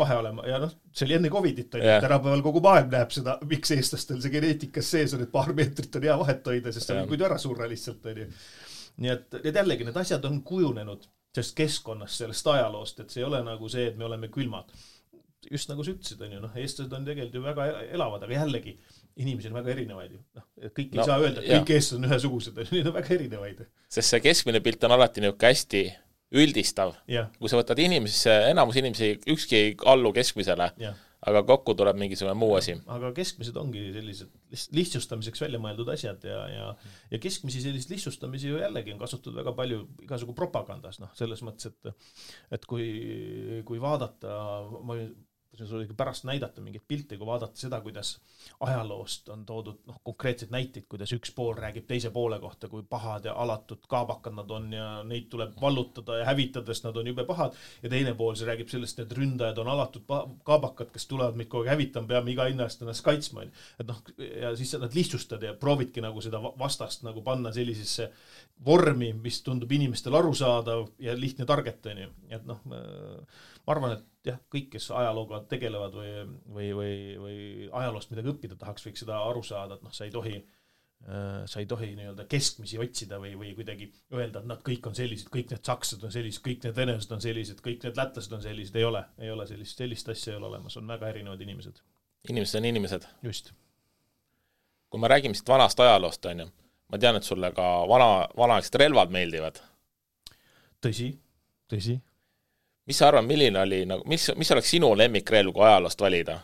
Ja see oli enne Covidit, tänapäeval kogu maailm näeb seda, miks eestlastel see geneetikas sees on, et paar meetrit on hea vahet hoida, sest see on kuid ära surra lihtsalt. Nii et jällegi need asjad on kujunenud sellest keskkonnast, sellest ajaloost, et see ei ole nagu see, et me oleme külmad. Just nagu sa ütlesid, on ju, eestlased on tegelikult ju väga elavad, aga jällegi inimesed on väga erinevaid ju. Kõik ei saa öelda, et kõik eestlased on ühesugused, need on väga erinevaid. Sest see keskmine pilt on alati niisugune hästi üldistav. Kui sa võtad enamus inimesi, ükski ei allu keskmisele, aga kokku tuleb mingisugune muu asi. Aga keskmised ongi sellised lihtsustamiseks välja mõeldud asjad ja keskmisi sellist lihtsustamisi ju jällegi on kasutatud väga palju igasugu propagandas, selles mõttes, et kui vaadata, see oli pärast näidata mingit pilti, kui vaadata seda, kuidas ajaloost on toodud konkreetseid näiteid, kuidas üks pool räägib teise poole kohta, kui pahad ja alatud kaabakad nad on ja neid tuleb vallutada ja hävitades nad on jube pahad ja teine pool see räägib sellest, et ründajad on alatud kaabakad, kes tulevad meid kogu hävitama, peame iga hinna eest ennast kaitsma. Et ja siis nad lihtsustad ja proovidki nagu seda vastast nagu panna sellisesse vormi, mis tundub inimestel arusaadav ja lihtne targetani. Et ma arvan, et jah, kõik, kes ajalooga tegelevad või ajaloost midagi õppida tahaks, võiks seda aru saada, et sa ei tohi nii-öelda keskmisi otsida või kuidagi öelda, et nad kõik on sellised, kõik need sakslased on sellised, kõik need venelased on sellised, kõik need lätlased on sellised, ei ole sellist asja ei ole olemas, on väga erinevad inimesed. Inimesed on inimesed. Just. Kui me räägime siit vanast ajaloost, on ju, ma tean, et sulle ka vanaaegsed relvad meeldivad. Tõsi. Mis sa arvan, milline oli, mis oleks sinu lemmikrelv, kui ajaloost valida?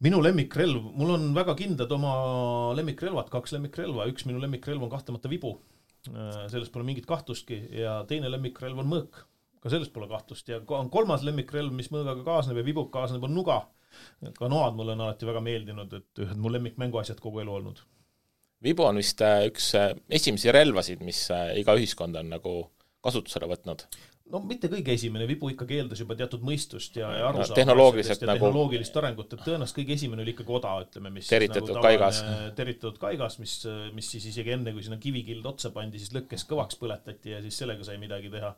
Minu lemmikrelv, mul on väga kindlad oma lemmikrelvad, 2 lemmikrelva, üks minu lemmikrelv on kahtlemata vibu, sellest pole mingit kahtlustki ja teine lemmikrelv on mõõk, ka sellest pole kahtlust ja on 3. lemmikrelv, mis mõõgaga kaasneb ja vibuk kaasneb on nuga, ka noad mulle on alati väga meeldinud, et ühed mu lemmikmänguasjad kogu elu olnud. Vibu on vist üks esimesi relvasid, mis iga ühiskond on nagu kasutusele võtnud. No mitte kõige esimene, vibu ikkagi eeldas juba teatud mõistust ja arusaamist tehnoloogilist arengut, et tõenäoliselt kõige esimene oli ikkagi oda, ütleme, mis teritatud kaigas, mis siis isegi enne, kui sinna kivikild otsa pandi, siis lõkkes kõvaks põletati ja siis sellega sai midagi teha.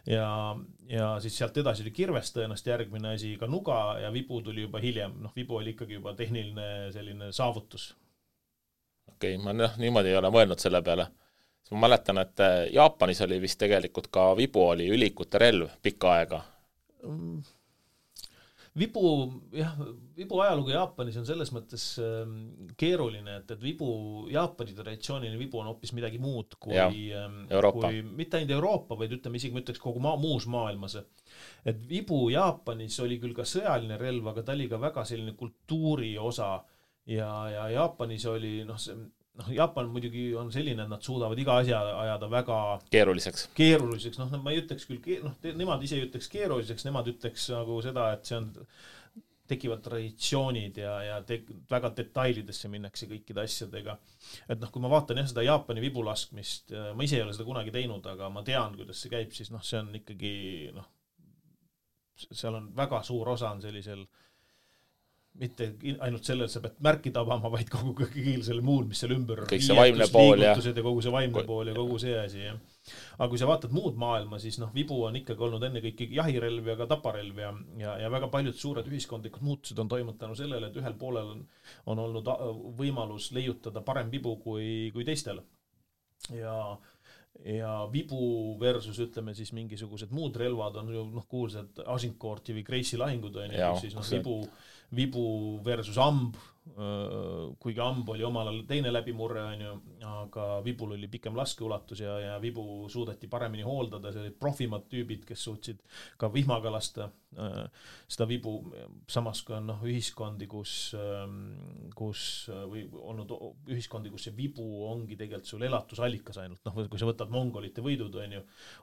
Ja siis sealt edasi oli kirves tõenäoliselt järgmine asi, ka nuga ja vibu tuli juba hiljem, vibu oli ikkagi juba tehniline selline saavutus. Okei, ma niimoodi ei ole mõelnud selle peale. Ma mäletan, et Jaapanis oli vist tegelikult ka vibu oli ülikute relv pikka aega. Vibu ajalugu Jaapanis on selles mõttes keeruline, et vibu, Jaapani traditsiooniline vibu on hoopis midagi muud kui mitte ainult Euroopa, vaid ütleme isegi, ma ütleks kogu muus maailmas. Et vibu Jaapanis oli küll ka sõjaline relv, aga ta oli ka väga selline kultuuri osa ja Jaapanis oli Jaapan muidugi on selline, et nad suudavad iga asja ajada väga keeruliseks. Ma ei ütleks küll, nemad ise ei ütleks keeruliseks, nemad ütleks nagu seda, et see on, tekivad traditsioonid ja väga detailidesse minnakse kõikide asjadega. Et kui ma vaatan seda Jaapani vibulaskmist, ma ise ei ole seda kunagi teinud, aga ma tean, kuidas see käib, siis see on ikkagi, seal on väga suur osa on sellisel mitte ainult sellel sa pead märki tabama, vaid kogu kõigil selle muul, mis seal ümber kõik see vaimne pool ja kogu see vaimne pool ja kogu see asi. Ja. Aga kui sa vaatad muud maailma, siis vibu on ikkagi olnud enne kõik jahirelv ja ka taparelv ja väga paljud suured ühiskondlikud muutused on toimunud tänu sellele, et ühel poolel on olnud võimalus leiutada parem vibu kui teistel. Ja vibu versus ütleme siis mingisugused muud relvad on ju kuulsad Agincourti või Gracie lahingud on ju, siis vibu versus amb, kuigi amb oli omal ajal teine läbimurre on ju, aga vibul oli pikem laskeulatus ja vibu suudeti paremini hooldada, see olid profimad tüübid, kes suutsid ka vihmaga lasta seda vibu, samas kui on ühiskondi, kus või olnud ühiskondi, kus see vibu ongi tegelikult sul elatusallikas ainult, kui sa võtad mongolite võidud on ju,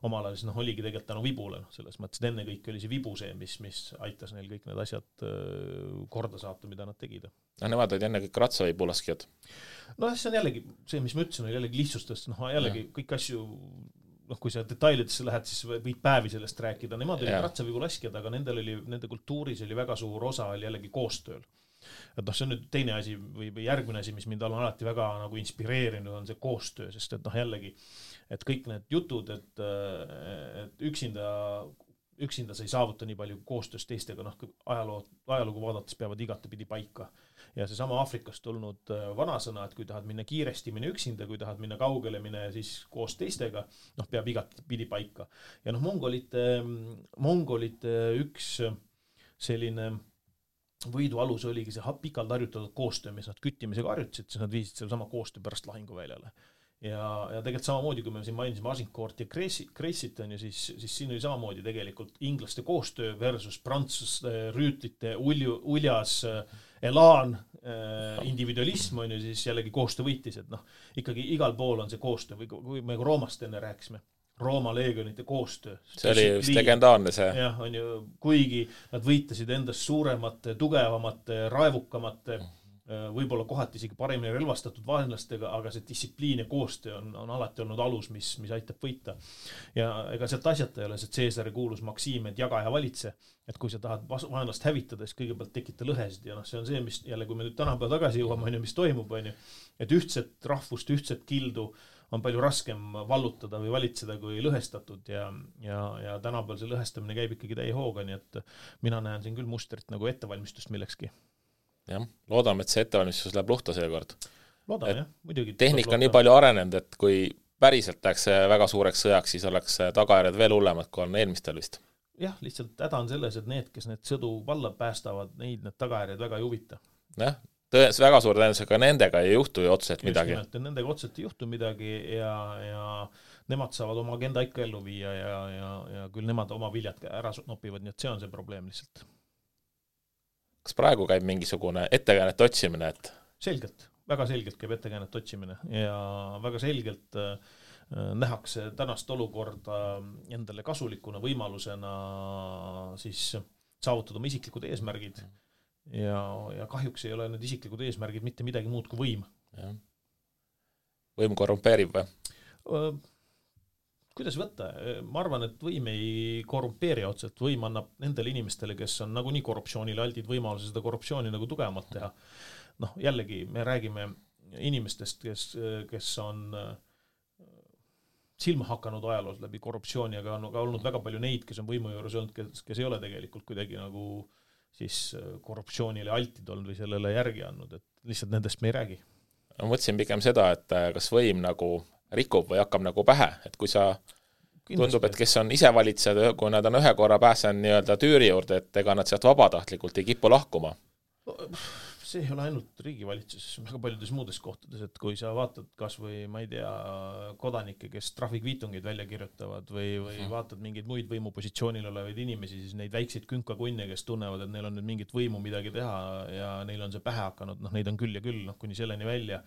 omal ajal siis oligi tegelikult tänu vibule, selles mõttes, et enne kõik oli see vibu see, mis aitas neil kõik need asjad korda saata, mida nad tegid. Nemad olid enne kõik ratsavibulaskjad. See on jällegi, see mis ma ütlesin, oli jällegi lihtsustest, jällegi kõik asju, kui sa detailidesse lähed, siis võid päevi sellest rääkida. Nemad olid ratsavibulaskjad, aga nende kultuuris oli väga suur osa oli jällegi koostööl. Et see on nüüd teine asi või järgmine asi, mis mind on alati väga inspireerinud, on see koostöö, sest et jällegi, et kõik need jutud, et üksinda sa ei saavuta nii palju koostöös teistega, ajalugu vaadates peavad igatepidi paika. Ja see sama Aafrikast tulnud vanasõna, et kui tahad minna kiiresti, mine üksinda, kui tahad minna kaugele, mine siis koos teistega, peab igatepidi paika. Ja mongolite üks selline võidu alus oligi see pikalt harjutatud koostöö, mis nad küttimisega harjutasid, siis nad viisid selle sama koostöö pärast lahinguväljale. Ja tegelikult samamoodi, kui me siin mainisime Agincourt ja Gracie't on ju, siis siin oli samamoodi tegelikult inglaste koostöö versus prantslaste rüütlite uljas elaan, individualism on ju, siis jällegi koostöö võitis, et ikkagi igal pool on see koostöö, või kui me Roomast enne rääkisime, Rooma leegionite koostöö. See oli just legendaarne see. Jah, on ju, kuigi nad võitasid endast suuremate, tugevamate, raevukamate, võib-olla kohati isegi paremini relvastatud vaenlastega, aga see distsipliin ja koostöö on alati olnud alus, mis aitab võita. Ja ega sealt asjata ei ole see Caesari kuulus maksiim, et jaga ja valitse, et kui sa tahad vaenlast hävitada, siis kõigepealt tekita lõhesid ja see on see, mis jälle, kui me nüüd tänapäeva tagasi jõuame, mis toimub, et ühtset rahvust, ühtset kildu on palju raskem vallutada või valitseda kui lõhestatud ja tänapäeval see lõhestamine käib ikkagi täie hooga, nii et mina näen siin küll mustrit nagu ettevalmistust millekski. Jah, loodame, et see ettevalmistus läheb luhta seekord. Loodame, jah, muidugi. Tehnika on nii palju arenenud, et kui päriselt läheks väga suureks sõjaks, siis oleks tagajärjed veel hullemad, kui on eelmistel vist. Jah, lihtsalt häda on selles, et need, kes need sõdu valla päästavad, need tagajärjed väga ei huvita. Jah, väga suur tõenäosusega nendega ei juhtu ju otseselt midagi. Just nimelt, nendega otseselt ei juhtu midagi ja nemad saavad oma agenda ikka ellu viia ja küll nemad oma viljad ära nopivad, nii et see on see probleem lihtsalt. Kas praegu käib mingisugune ettekäänet otsimine? Et... Selgelt, väga selgelt käib ettekäänet otsimine ja väga selgelt nähakse tänast olukorda endale kasulikuna võimalusena siis saavutada oma isiklikud eesmärgid ja kahjuks ei ole need isiklikud eesmärgid mitte midagi muud kui võim. Ja. Võim korrumpeerib või? Kuidas võtta? Ma arvan, et võim ei korrumpeeri otseselt. Võim annab nendele inimestele, kes on nagunii korruptsioonile aldid võimaluse seda korruptsiooni nagu tugevamalt teha. Jällegi, me räägime inimestest, kes on silma hakanud ajaloos läbi korruptsiooni, aga on ka olnud väga palju neid, kes on võimu juures olnud, kes ei ole tegelikult kuidagi nagu siis korruptsioonile altid olnud või sellele järgi andnud, et lihtsalt nendest me ei räägi. Ma mõtlesin pigem seda, et kas võim nagu rikub või hakkab nagu pähe, et kui sa tundub, et kes on ise valitsejad, kui nad on ühe korra pääsen nii-öelda tüüri juurde, et ega nad sealt vabatahtlikult ei kipu lahkuma. See ei ole ainult riigivalitsuses, väga paljudes muudes kohtades, et kui sa vaatad kas või, ma ei tea, kodanikke, kes trahvikviitungeid välja kirjutavad või vaatad mingeid muid võimupositsioonil olevaid inimesi, siis neid väikseid künkakunne, kes tunnevad, et neil on nüüd mingit võimu midagi teha ja neil on see pähe hakanud, neid on küll ja küll, kuni selleni välja.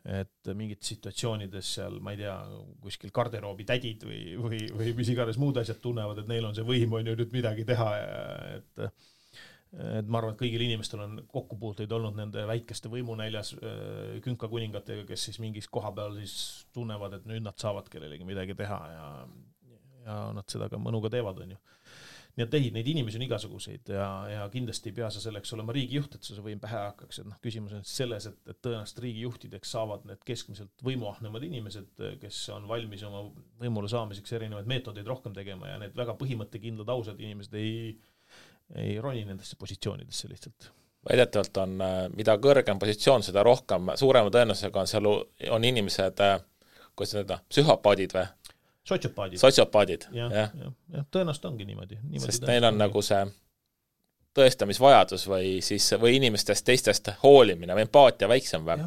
et mingid situatsioonides seal, ma ei tea, kuskil garderoobi tädid või mis iganes muud asjad tunnevad, et neil on see võim on ju nüüd midagi teha, et ma arvan, et kõigil inimestel on kokkupuuteid olnud nende väikeste võimunäljas künkakuningatega, kes siis mingis koha peal siis tunnevad, et nüüd nad saavad kellelegi midagi teha ja nad seda ka mõnuga teevad, on ju. Nii et neid inimesi on igasuguseid ja kindlasti ei pea sa selleks olema riigijuht, et see võim pähe hakkaks. Et küsimus on selles, et tõenäoliselt riigijuhtideks saavad need keskmiselt võimuahnemad inimesed, kes on valmis oma võimule saamiseks erinevaid meetodeid rohkem tegema ja need väga põhimõttekindlad ausad inimesed ei roni nendesse positsioonidesse lihtsalt. Väidetavalt on, mida kõrgem positsioon, seda rohkem, suurema tõenäosusega on seal on inimesed, kuidas seda, psühhopaadid või? Sotsiopaadid. Ja, tõenäoliselt ongi niimoodi. Sest neil on nagu see tõestamisvajadus või inimestest teistest hoolimine või empaatia väiksem või?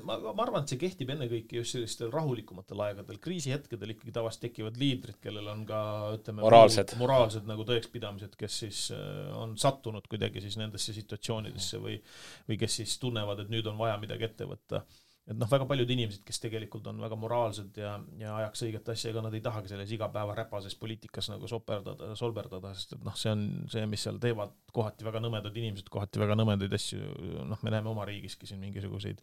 Ma arvan, et see kehtib enne kõiki just sellistel rahulikumatel aegadel. Kriisihetkedel ikkagi tavaliselt tekivad liidrid, kellel on ka ütleme, moraalsed nagu tõekspidamised, kes siis on sattunud kuidagi siis nendesse situatsioonidesse või kes siis tunnevad, et nüüd on vaja midagi ette võtta. Et väga paljud inimesed, kes tegelikult on väga moraalsed ja ajaks õiget asja, ega nad ei tahagi selles igapäeva räpases poliitikas nagu solberdada, sest et see on see, mis seal teevad kohati väga nõmedad inimesed, kohati väga nõmedaid asju. Me näeme oma riigiski siin mingisuguseid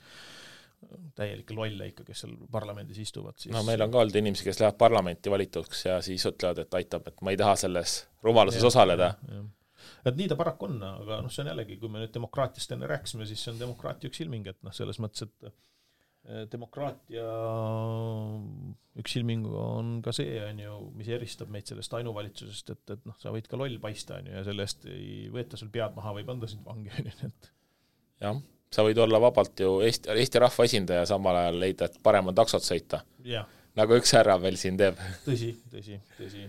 täielikke lolle ikka, kes seal parlamendis istuvad. Siis... meil on ka olnud inimesi, kes lähevad parlamenti valituks ja siis ütlevad, et aitab, et ma ei taha selles rumaluses osaleda. Et nii ta paraku on, aga see on jällegi, kui me nüüd demokraatiast enne rääkisime, siis see on demokraatia üks ilming, et selles mõttes, et demokraatia üks ilming on ka see, on ju, mis eristab meid sellest ainuvalitsusest, et sa võid ka loll paista, on ju, ja sellest ei võeta sul pead maha, võib anda sind vangi. Jah, sa võid olla vabalt ju Eesti rahva esindaja samal ajal leida, et parem on taksot sõita. Ja. Nagu üks härra veel siin teeb. Tõsi.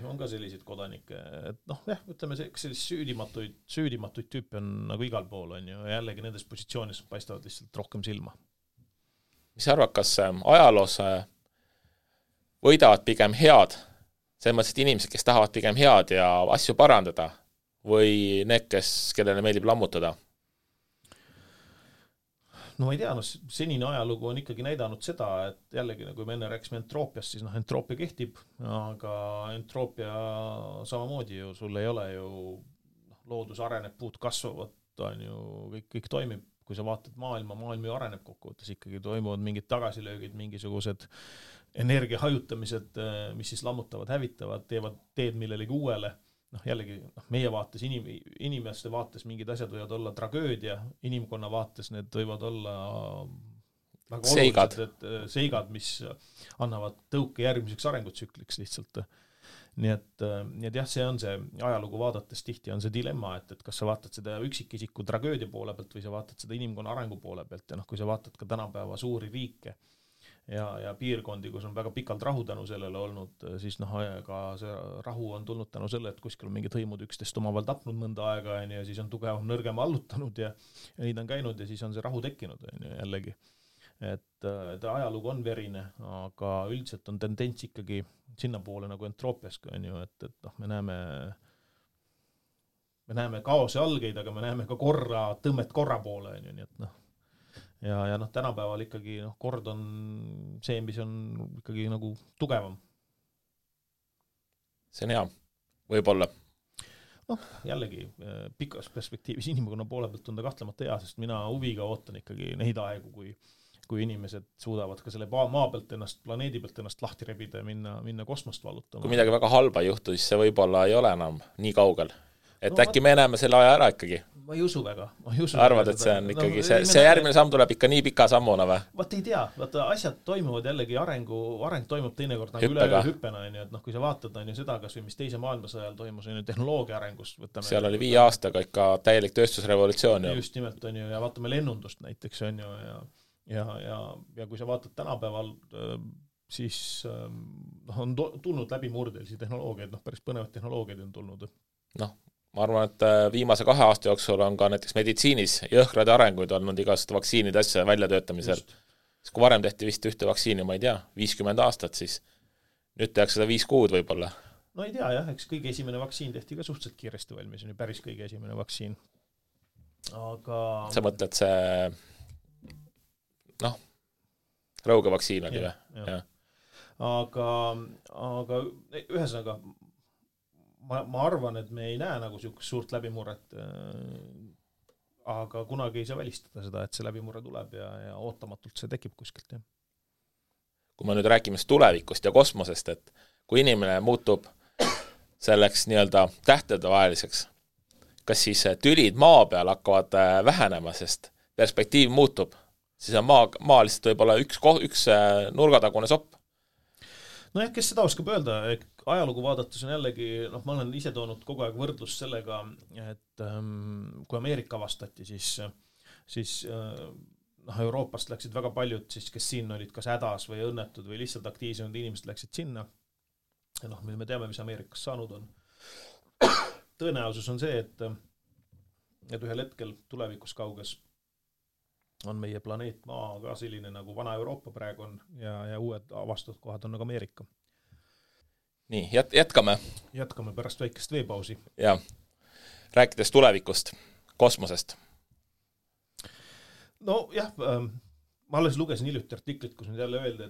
On ka selliseid kodanikke. Et ütleme, sellist süüdimatuid tüüpi on nagu igal pool, on ju, ja jällegi nendes positsioonis paistavad lihtsalt rohkem silma. Mis arvad, kas ajaloos võidavad pigem head, selles mõttes, et inimesed, kes tahavad pigem head ja asju parandada või need, kellele meeldib lammutada? No ma ei tea, senine ajalugu on ikkagi näidanud seda, et jällegi, kui me enne rääkisime entroopiast, siis entroopia kehtib, aga entroopia samamoodi ju, sul ei ole ju loodus areneb, puud kasvavad, on ju, kõik toimib. Kui sa vaatad maailm ju areneb kokkuvõttes, ikkagi toimuvad mingid tagasilöögid, mingisugused energia hajutamised, mis siis lammutavad, hävitavad, teevad teed millelegi uuele. Jällegi, meie vaates, inimeste vaates mingid asjad võivad olla tragöödia, inimkonna vaates need võivad olla väga olulised seigad, mis annavad tõuke järgmiseks arengutsükliks lihtsalt. Nii et jah, see on see ajalugu vaadates tihti on see dilemma, et kas sa vaatad seda üksikisiku tragöödia poole pealt või sa vaatad seda inimkonna arengu poole pealt ja kui sa vaatad ka tänapäeva suuri riike ja piirkondi, kus on väga pikalt rahu tänu sellele olnud, siis ka see rahu on tulnud tänu selle, et kuskil on mingid hõimud üksteist omavahel tapnud mõnda aega ja siis on tugevam nõrgem allutanud ja neid on käinud ja siis on see rahu tekkinud jällegi. Et ajalugu on verine, aga üldiselt on tendents ikkagi sinna poole nagu entroopiaska, on ju, et me näeme kaose algeid, aga me näeme ka tõmmet korra poole, on ju, nii et ja tänapäeval ikkagi kord on see, mis on ikkagi nagu tugevam. See on hea, võib-olla. Jällegi, pikas perspektiivis inimkonna poole pealt on ta kahtlemata hea, sest mina huviga ootan ikkagi neid aegu, kui inimesed suudavad ka selle maa pealt planeedi pealt ennast lahti rebida ja minna kosmost vallutama. Kui midagi väga halba juhtu, siis see võib-olla ei ole enam nii kaugel. Et äkki me näeme selle aja ära ikkagi. Ma ei usu väga. Arvad, et see on ikkagi, see järgmine samm tuleb ikka nii pika sammuna või? Vaat ei tea, asjad toimuvad jällegi areng toimub teinekord nagu üle hüppena, et kui sa vaatad seda, kas või mis teise maailmasõjal toimus tehnoloogia arengust. Seal oli 5 aastaga ikka täielik tööstusrevolutsioon. Just nimelt on ju, ja vaatame lennundust näiteks on ju, ja kui sa vaatad tänapäeval, siis on tulnud läbi murdelisi tehnoloogiaid, päris põnevad tehnoloogiaid on tulnud. Ma arvan, et viimase 2 aasta jooksul on ka näiteks meditsiinis jõhkrad arenguid olnud igast vaktsiinide asja väljatöötamisel. Kui varem tehti vist ühte vaktsiini, ma ei tea, 50 aastat, siis nüüd tehakse seda 5 kuud võib-olla. No ei tea jah, eks kõige esimene vaktsiin tehti ka suhteliselt kiiresti valmis, on ju päris kõige esimene vaktsiin. Aga... Sa mõtled see... Rõuge vaktsiin oli või? Aga ühesõnaga ma arvan, et me ei näe nagu niisugust suurt läbimurret, aga kunagi ei saa välistada seda, et see läbimurre tuleb ja ootamatult see tekib kuskilt. Kui me nüüd räägime tulevikust ja kosmosest, et kui inimene muutub selleks nii-öelda tähtedevaheliseks, kas siis tülid maa peal hakkavad vähenema, sest perspektiiv muutub, siis on maa lihtsalt võib-olla üks nurgatagune sopp? Nojah, kes seda oskab öelda, ajalugu vaadates on jällegi, ma olen ise toonud kogu aeg võrdlust sellega, et kui Ameerika avastati, siis Euroopast läksid väga paljud, siis, kes siin olid kas hädas või õnnetud või lihtsalt aktiivsed inimesed läksid sinna. Ja me teame, mis Ameerikas saanud on. Tõenäosus on see, et ühel hetkel tulevikus kauges on meie planeet Maa ka selline nagu vana Euroopa praegu on ja uued avastatud kohad on nagu Ameerika. Nii, jätkame. Jätkame pärast väikest veepausi. Ja, rääkides tulevikust, kosmosest. No jah, ma alles lugesin hiljuti artiklit, kus nüüd jälle öeldi,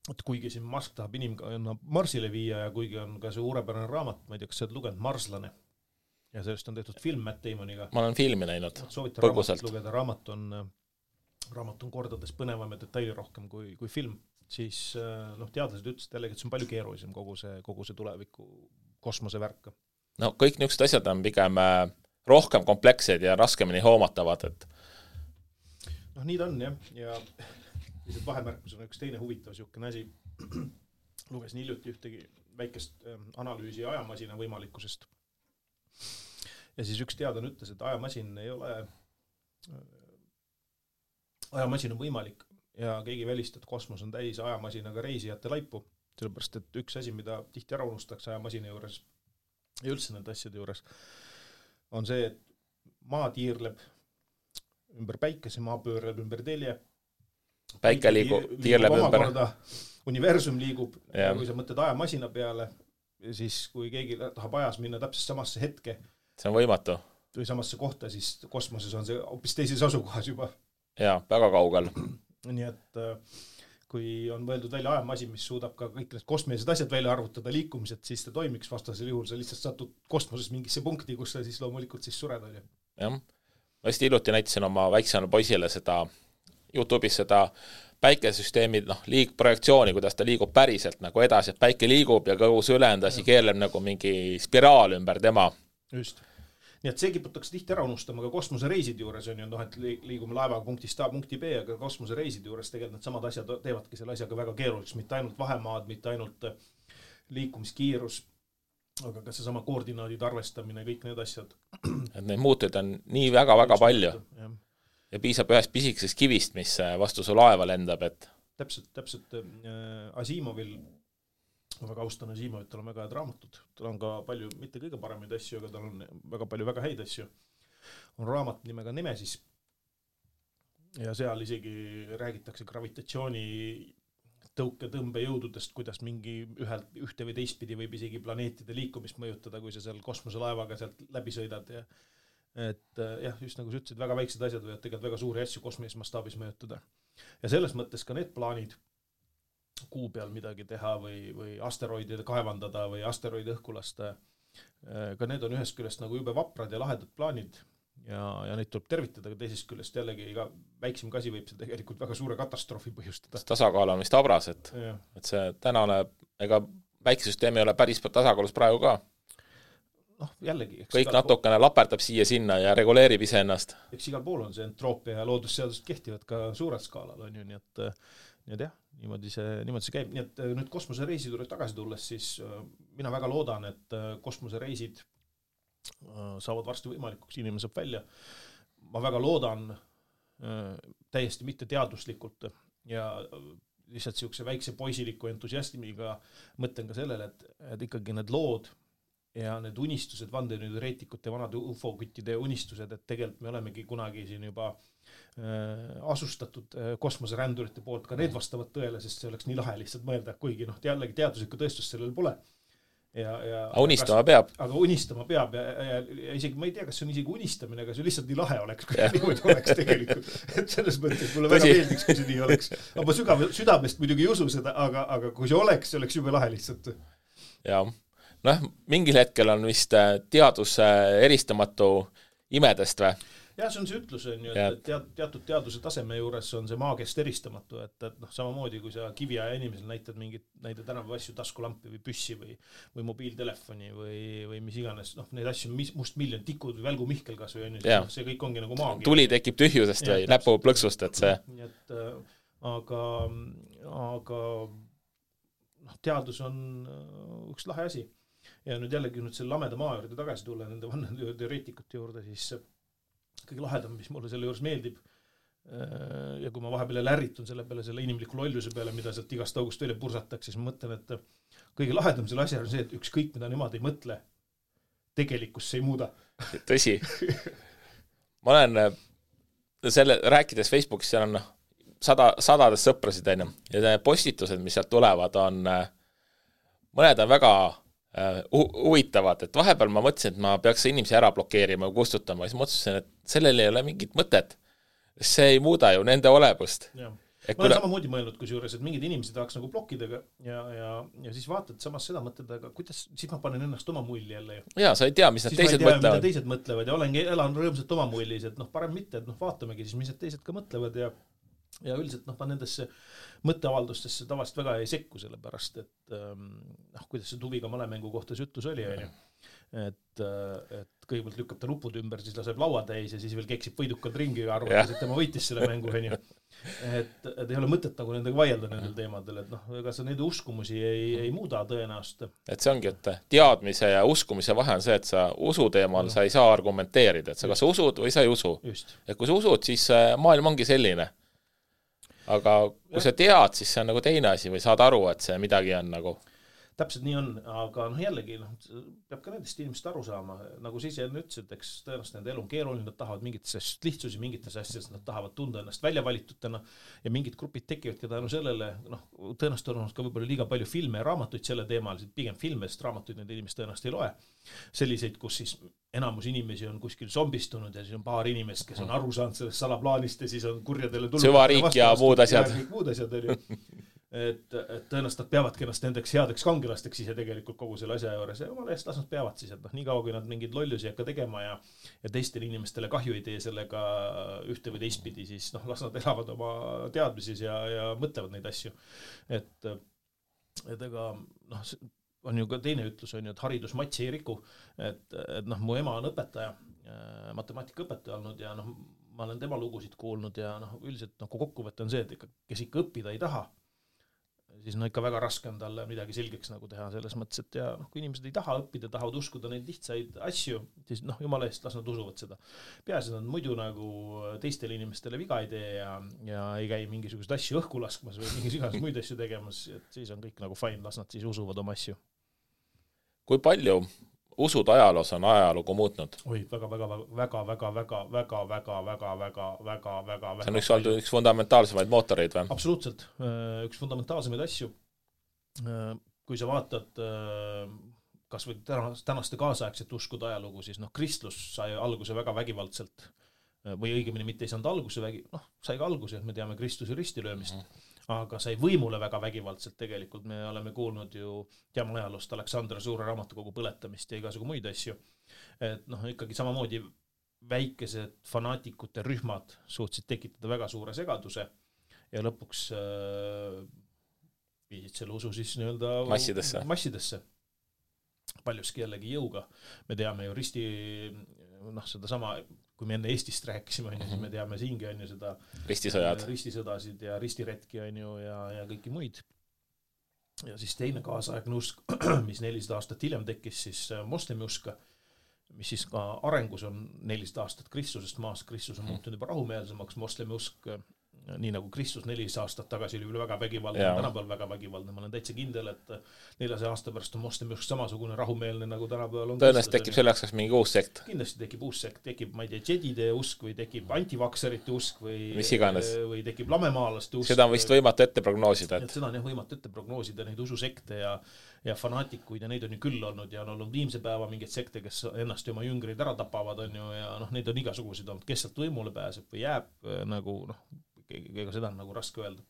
et kuigi siin Musk tahab inimkonna Marsile viia ja kuigi on ka see suurepärane raamat, ma ei tea, kas sa oled lugenud, Marslane, ja sellest on tehtud film Matt Damoniga. Ma olen filmi näinud põgusalt. Lugeda, raamat on kordades põnevam ja detaili rohkem kui film, siis teadlased ütlesid jällegi, et see on palju keerulisem kogu see tuleviku kosmose värk. No kõik niisugused asjad on pigem rohkem komplekssed ja raskemini hoomatavad, et nii ta on, jah. Ja lihtsalt vahemärkus on üks teine huvitav niisugune asi. Lugesin hiljuti ühtegi väikest analüüsi ajamasina võimalikkusest. Ja siis üks teadlane ütles, et ajamasin on võimalik ja keegi välistab, et kosmos on täis ajamasinaga reisijate laipu. Sellepärast, et üks asi, mida tihti ära unustatakse ajamasina juures ja üldse nende asjade juures, on see, et maa tiirleb ümber päikese, maa pöörleb ümber telje. Päike tiirleb ümber. Universum liigub, ja kui sa mõtled ajamasina peale, siis kui keegi tahab ajas minna täpselt samasse hetke, see on võimatu. Või samasse kohta, siis kosmoses on see hoopis teises asukohas juba. Jaa, väga kaugel. Nii et kui on võeldud välja ajamasin, mis suudab ka kõik need kosmilised asjad välja arvutada liikumised, siis ta toimiks, vastasel juhul sa lihtsalt satud kosmoses mingisse punkti, kus sa siis loomulikult siis sured oli. Jah. Ma hästi hiljuti näitasin oma väiksele poisile seda YouTube'is seda päikesüsteemi projektsiooni, kuidas ta liigub päriselt nagu edasi, et päike liigub ja kogu see ülendasi keerleb nagu mingi spiraal ümber tema. Just. Nii et see kiputakse tihti ära unustama ka kosmosereisid juures on ju, et liigume laevaga punktist A punkti B, aga kosmosereisid juures tegelikult need samad asjad teevadki selle asjaga väga keeruliseks, mitte ainult vahemaad, mitte ainult liikumiskiirus, aga ka see sama koordinaadid arvestamine, kõik need asjad. Et neid muutuid on nii väga-väga palju. Ja piisab ühest pisikesest kivist, mis vastu su laeva lendab, et Täpselt Asimovil, ma väga austan Asimovit, tal on väga head raamatud, tal on ka palju, mitte kõige paremaid asju, aga tal on väga palju väga häid asju. On raamat nimega Nemesis ja seal isegi räägitakse gravitatsiooni tõmbejõududest, kuidas mingi ühte või teistpidi võib isegi planeetide liikumist mõjutada, kui sa seal kosmoselaevaga sealt läbi sõidad ja et jah, just nagu sa ütlesid, väga väiksed asjad võivad tegelikult väga suuri asju kosmilises mastaabis mõjutada. Ja selles mõttes ka need plaanid kuu peal midagi teha või asteroidide kaevandada või asteroide õhku lasta, ka need on ühest küljest nagu jube vaprad ja lahedad plaanid ja neid tuleb tervitada, aga teisest küljest jällegi iga väiksem kasi võib see tegelikult väga suure katastroofi põhjustada. Tasakaal on vist abras, et see tänane, ega väikesüsteem ei ole päris tasakaalus praegu ka. Jällegi. Kõik natukene laperdab siia-sinna ja reguleerib ise ennast. Eks igal pool on see entroopia ja loodusseadused kehtivad ka suurel skaalal, on ju, nii et jah, niimoodi see käib. Nii et nüüd kosmosereisid juurde tagasi tulles, siis mina väga loodan, et kosmosereisid saavad varsti võimalikuks, inimene saab välja. Ma väga loodan täiesti mitte teaduslikult ja lihtsalt siukse väikse poisiliku entusiastimiga mõtlen ka sellele, et ikkagi need lood ja need unistused, vandenõuteoreetikute, vanade ufo-küttide unistused, et tegelikult me olemegi kunagi siin juba asustatud kosmoserändurite poolt, ka need vastavad tõele, sest see oleks nii lahe lihtsalt mõelda, kuigi jällegi teaduslikku tõestust sellel pole. Aga unistama peab. Aga unistama peab ja isegi ma ei tea, kas see on isegi unistamine, aga see lihtsalt nii lahe oleks, kui niimoodi oleks tegelikult. Et selles mõttes mulle väga meeldiks, kui see nii oleks. Aga ma südamest muidugi ei usu seda, aga kui see oleks jube lahe lihtsalt. Ja, mingil hetkel on vist teadus eristamatu imedest või? Jah, see on see ütlus, et teatud teaduse taseme juures on see maagest eristamatu, et samamoodi kui sa kiviaja inimesel näitad tänapäeva asju, taskulampi või püssi või mobiiltelefoni või mis iganes, neid asju, must miljon tikud või välgu Mihkel kas või see kõik ongi nagu maagia. Tuli tekib tühjusest või näpu plõksust, et see. Aga teadus on üks lahe asi. Ja nüüd jällegi selle lameda maa juurde tagasi tulla nende vanneteoreetikute juurde, siis kõige lahedam, mis mulle selle juures meeldib ja kui ma vahepeal ärritun selle peale, selle inimliku lolluse peale, mida sealt igast august välja pursatakse, siis ma mõtlen, et kõige lahedam selle asja on see, et ükskõik mida nemad ei mõtle, tegelikkus see ei muuda. Tõsi. Ma olen rääkides Facebookis, seal on sadades sõprasid ja postitused, mis sealt tulevad, mõned on väga huvitavad, et vahepeal ma mõtlesin, et ma peaks inimesi ära blokeerima ja kustutama, siis mõtlesin, et sellel ei ole mingit mõtet. See ei muuda ju nende olemust. Ma olen samamoodi mõelnud kusjuures, et mingid inimesed tahaks nagu blokkida ja siis vaatad samas seda mõtled, aga kuidas, siis ma panen ennast oma mulli jälle. Jaa, sa ei tea, mis need teised mõtlevad. Mida teised mõtlevad ja elan rõõmsalt oma mullis, et parem mitte, et vaatamegi siis, mis need teised ka mõtlevad ja üldiselt ma nendesse mõtteavaldustesse tavaliselt väga ei sekku, sellepärast, et kuidas see Tuviga malemängu kohta see ütlus oli, et kõigepealt lükkab ta nupud ümber, siis laseb laua täis ja siis veel keksib võidukad ringi ja arvates, et tema võitis selle mängu. Et ei ole mõtet nagu nendega vaielda nendel teemadel, et ega sa neid uskumusi ei muuda tõenäoliselt. Et see ongi, et teadmise ja uskumise vahe on see, et sa usu teemal sa ei saa argumenteerida, et sa kas usud või sa ei usu. Et kui sa usud, siis maailm ongi selline. Aga kui sa tead, siis see on nagu teine asi või saad aru, et see midagi on nagu... Täpselt nii on, aga jällegi peab ka nendest inimest aru saama. Nagu siis enne ütlesid, eks tõenäoliselt nende elu on keeruline, nad tahavad mingites lihtsusi, mingites asjades, nad tahavad tunda ennast välja valitutena ja mingid grupid tekivad ka tänu sellele, tõenäoliselt on ka võib-olla liiga palju filme ja raamatuid selle teemal, pigem filme, sest raamatuid need inimesed tõenäoliselt ei loe. Selliseid, kus siis enamus inimesi on kuskil zombistunud ja siis on paar inimest, kes on aru saanud sellest salaplaanist ja siis on kurjadele tulnud. Süvariik ja muud asjad. Et tõenäoliselt nad peavadki ennast nendeks headeks kangelasteks ise tegelikult kogu selle asja juures ja omale eest las nad peavad siis, et nii kaua kui nad mingid lollusi hakka tegema ja teistele inimestele kahju ei tee sellega ühte või teistpidi, siis las nad elavad oma teadmises ja mõtlevad neid asju. Et ega on ju ka teine ütlus on ju, et haridus matsi ei riku, et mu ema on õpetaja, matemaatikaõpetaja olnud ja ma olen tema lugusid kuulnud ja üldiselt kokkuvõte on see, et kes ikka õppida ei taha, siis ikka väga raske on talle midagi selgeks nagu teha selles mõttes, et ja kui inimesed ei taha õppida, tahavad uskuda neid lihtsaid asju, siis jumala eest las nad usuvad seda. Peaasi nad muidu nagu teistele inimestele viga ei tee ja ei käi mingisugust asju õhku laskmas või mingisugust muid asju tegemas, et siis on kõik nagu fine, las nad siis usuvad oma asju. Kui palju usud ajaloos on ajalugu muutnud? Oi, väga. See on üks fundamentaalsemaid mootoreid või? Absoluutselt. Üks fundamentaalsemaid asju. Kui sa vaatad kas või tänaste kaasaegset uskuda ajalugu, siis kristlus sai alguse väga vägivaldselt või õigemini mitte ei saanud alguse sai ka alguse, et me teame Kristuse ristilöömist. Aga sai võimule väga vägivaldselt tegelikult. Me oleme kuulnud ju teame ajaloost Aleksandra suure raamatukogu põletamist ja igasugu muid asju. Et ikkagi samamoodi väikesed fanaatikute rühmad suutsid tekitada väga suure segaduse ja lõpuks viisid selle usu siis massidesse. Paljuski jällegi jõuga. Me teame ju seda sama kui me enne Eestist rääkisime, siis me teame siingi on ju seda ristisõdasid ja ristiretki on ju ja kõiki muid. Ja siis teine kaasaegne usk, mis 400 aastat hiljem tekkis, siis moslemi uska, mis siis ka arengus on 400 aastat Kristusest maast. Kristus on muutunud juba rahumeelsemaks, moslemi usk nii nagu Kristus 400 aastat tagasi oli väga vägivaldne, tänapäeval väga vägivaldne. Ma olen täitsa kindel, et 400 aasta pärast on moslemi usk samasugune rahumeelne nagu tänapäeval on. Tõenäoliselt tekib selleks kas mingi uus sekt. Kindlasti tekib uus sekt, tekib, ma ei tea, džedide usk või tekib antivakserite usk või tekib lamemaalaste usk. Seda on vist võimatu ette prognoosida. Et seda on võimatu ette prognoosida, neid ususekte ja fanaatikuid ja neid on ju küll olnud ja on olnud viimse päeva mingeid sekte, kes ennast ja oma jüngreid ära tapavad on ju ja neid on igasuguseid olnud, kes sealt võimule pääseb või jääb nagu ega seda on nagu raske öelda.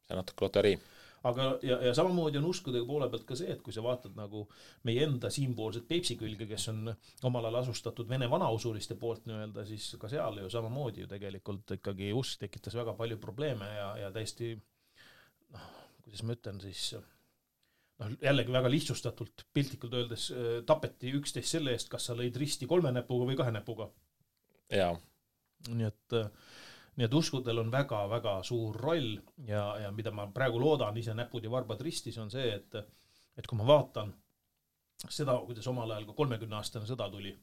See on natuke loterii. Aga ja samamoodi on uskudega poole pealt ka see, et kui sa vaatad nagu meie enda siinpoolset Peipsi külge, kes on omal ajal asustatud Vene vanausuliste poolt nii-öelda, siis ka seal ju samamoodi ju tegelikult ikkagi usk tekitas väga palju probleeme ja täiesti kuidas ma ütlen siis jällegi väga lihtsustatult piltlikult öeldes tapeti üksteist selle eest, kas sa lõid risti 3 näpuga või 2 näpuga. Jaa. Nii et uskudel on väga-väga suur roll ja mida ma praegu loodan ise näpud ja varbad ristis on see, et kui ma vaatan seda, kuidas omal ajal ka 30-aastane sõda tuli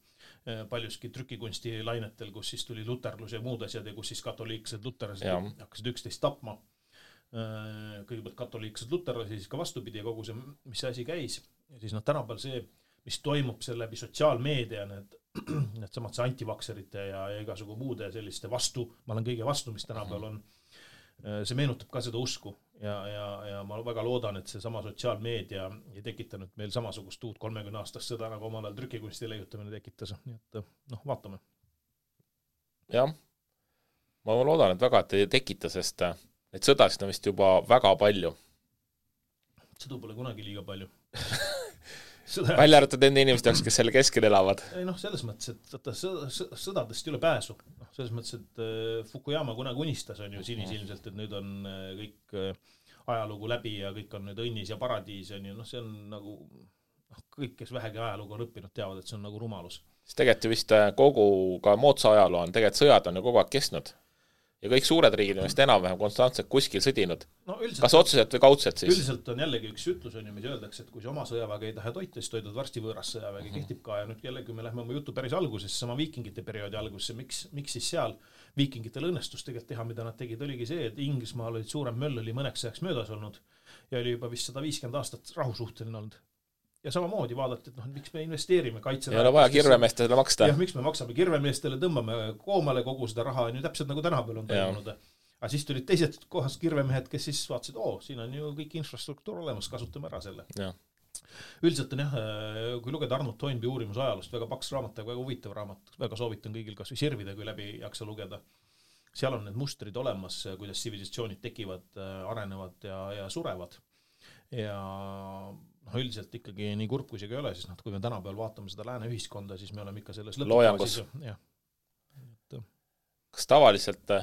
paljuski trükikunsti lainetel, kus siis tuli luterlus ja muud asjad ja kus siis katoliiksed luterlased hakkasid üksteist tapma. Kõigepealt katoliiksed luterlased, siis ka vastupidi ja kogu see, mis asi käis. Ja siis tänapäeval see, mis toimub selle läbi sotsiaalmeedia, need samad see antivakserite ja igasugu muude selliste vastu, ma olen kõige vastu, mis tänapäeval on, see meenutab ka seda usku ja ma väga loodan, et see sama sotsiaalmeedia ei tekitanud meil samasugust uut 30 aastast sõda, nagu omal ajal trükikunsti leiutamine tekitas, nii et vaatame. Jah, ma loodan, et väga et ei tekita, sest neid sõdasid on vist juba väga palju. Sõdu pole kunagi liiga palju. Välja arvatud enda inimesed jaoks, kes selle keskel elavad. Ei selles mõttes, et sõdadest ei ole pääsu. Selles mõttes, et Fukuyama kunagi unistas on ju sinisilmselt, et nüüd on kõik ajalugu läbi ja kõik on nüüd õnnis ja paradiis on ju, see on nagu kõik, kes vähegi ajalugu on õppinud, teavad, et see on nagu rumalus. Siis tegelikult ju vist kogu ka moodsa ajaloo on, tegelikult sõjad on ju kogu aeg kestnud. Ja kõik suured riigid on vist enam-vähem konstantselt kuskil sõdinud. Kas otseselt või kaudselt siis? Üldiselt on jällegi üks ütlus, on ju, mis öeldakse, et kui see oma sõjaväge ei taha toita, siis toidad varsti võõras sõjaväge kehtib ka. Ja nüüd jällegi me lähme oma jutu päris algusesse, sama viikingite perioodi algusesse. Miks siis seal viikingitel õnnestus tegelikult teha, mida nad tegid, oligi see, et Inglismaal olid suurem möll oli mõneks ajaks möödas olnud ja oli juba vist 150 aastat rahusuhteline olnud. Ja samamoodi vaadati, et miks me investeerime kaitse. Ei ole vaja kirvemeestele maksta. Ja miks me maksame kirvemeestele, tõmbame koomale kogu seda raha, on ju täpselt nagu tänapäeval on toimunud. Aga siis tulid teised kohas kirvemehed, kes siis vaatasid, siin on ju kõik infrastruktuur olemas, kasutame ära selle. Ja. Üldiselt on kui lugeda Arnold Toynbee uurimus ajalust, väga paks raamat, väga huvitav raamat, väga soovitan kõigil kas või sirvida, kui läbi jaksa lugeda. Seal on need mustrid olemas, kuidas tsivilisatsioonid tekivad, arenevad ja surevad. Ja üldiselt ikkagi nii kurb kui see ei ole, siis kui me tänapäeval vaatame seda lääne ühiskonda, siis me oleme ikka selles loojangus. Kas tavaliselt,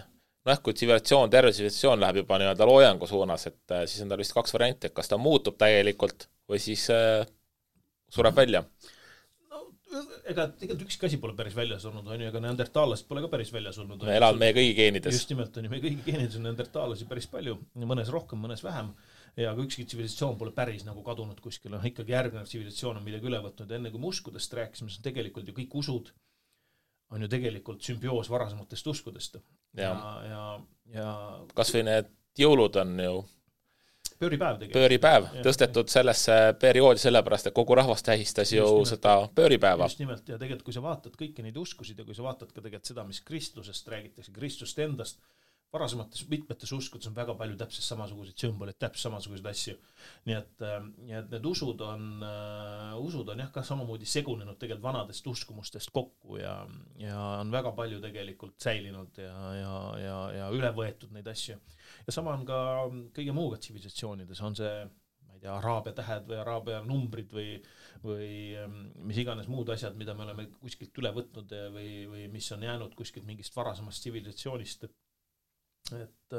kui tsivilisatsioon, terve tsivilisatsioon läheb juba nii-öelda loojangu suunas, et siis on tal vist 2 varianti, et kas ta muutub täielikult või siis sureb välja? Ega tegelikult ükski asi pole päris väljas olnud, on ju, ega neandertaallased pole ka päris väljas olnud. Me elavad meie kõigi geenides. Just nimelt on ju, meie kõigi geenides on neandertaallasi päris palju, mõnes rohkem, mõnes vähem. Ja kui ükski tsivilisatsioon pole päris nagu kadunud kuskil, ikkagi järgnev tsivilisatsioon on midagi üle võtnud. Enne kui me uskudest rääkisime, siis tegelikult ju kõik usud on ju tegelikult sümbioos varasematest uskudest. Ja kas või need jõulud on ju pööripäev tõstetud sellesse perioodi sellepärast, et kogu rahvas tähistas ju seda pööripäeva. Just nimelt, ja tegelikult kui sa vaatad kõiki neid uskusid ja kui sa vaatad ka tegelikult seda, mis Kristlusest räägitakse, Kristust endast, varasemates mitmetes uskudes on väga palju täpselt samasuguseid sümboleid, täpselt samasuguseid asju. Nii et need usud on ka samamoodi segunenud tegelikult vanadest uskumustest kokku ja on väga palju tegelikult säilinud ja üle võetud neid asju. Ja sama on ka kõige muuga tsivilisatsioonides, on see, ma ei tea, araabia tähed või araabia numbrid või mis iganes muud asjad, mida me oleme kuskilt üle võtnud või mis on jäänud kuskilt mingist varasemast tsivilisatsioonist, et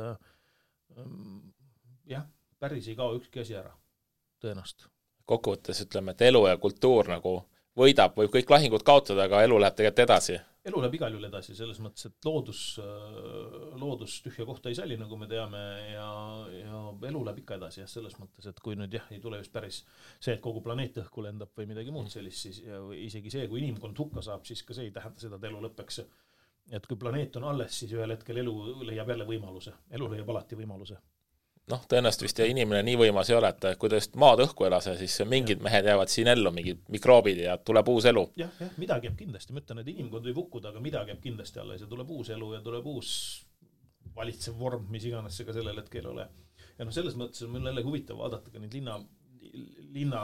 päris ei kao ükski asi ära, tõenäoliselt. Kokkuvõttes ütleme, et elu ja kultuur nagu võidab, võib kõik lahingud kaotada, aga elu läheb tegelikult edasi. Elu läheb igal juhul edasi, selles mõttes, et loodus tühja kohta ei salli, nagu me teame, ja elu läheb ikka edasi, selles mõttes, et kui nüüd ei tule just päris see, et kogu planeet õhku lendab või midagi muud sellist, siis isegi see, kui inimkond hukka saab, siis ka see ei tähenda seda, et elu lõpeks. et kui planeet on alles, siis ühel hetkel elu leiab jälle võimaluse. Elu leiab alati võimaluse. Noh, tõenäoliselt vist inimene nii võimas ei ole, et kui ta just maad õhku elase, siis mingid mehed jäävad siin ellu, mingid mikroobid ja tuleb uus elu. Jah, midagi jääb kindlasti. Ma ütlen, et inimkond võib hukkuda, aga midagi jääb kindlasti alles ja tuleb uus elu ja tuleb uus valitsev vorm, mis iganes see ka sellel hetkel ole. Ja selles mõttes on mul jälle huvitav vaadata ka neid linna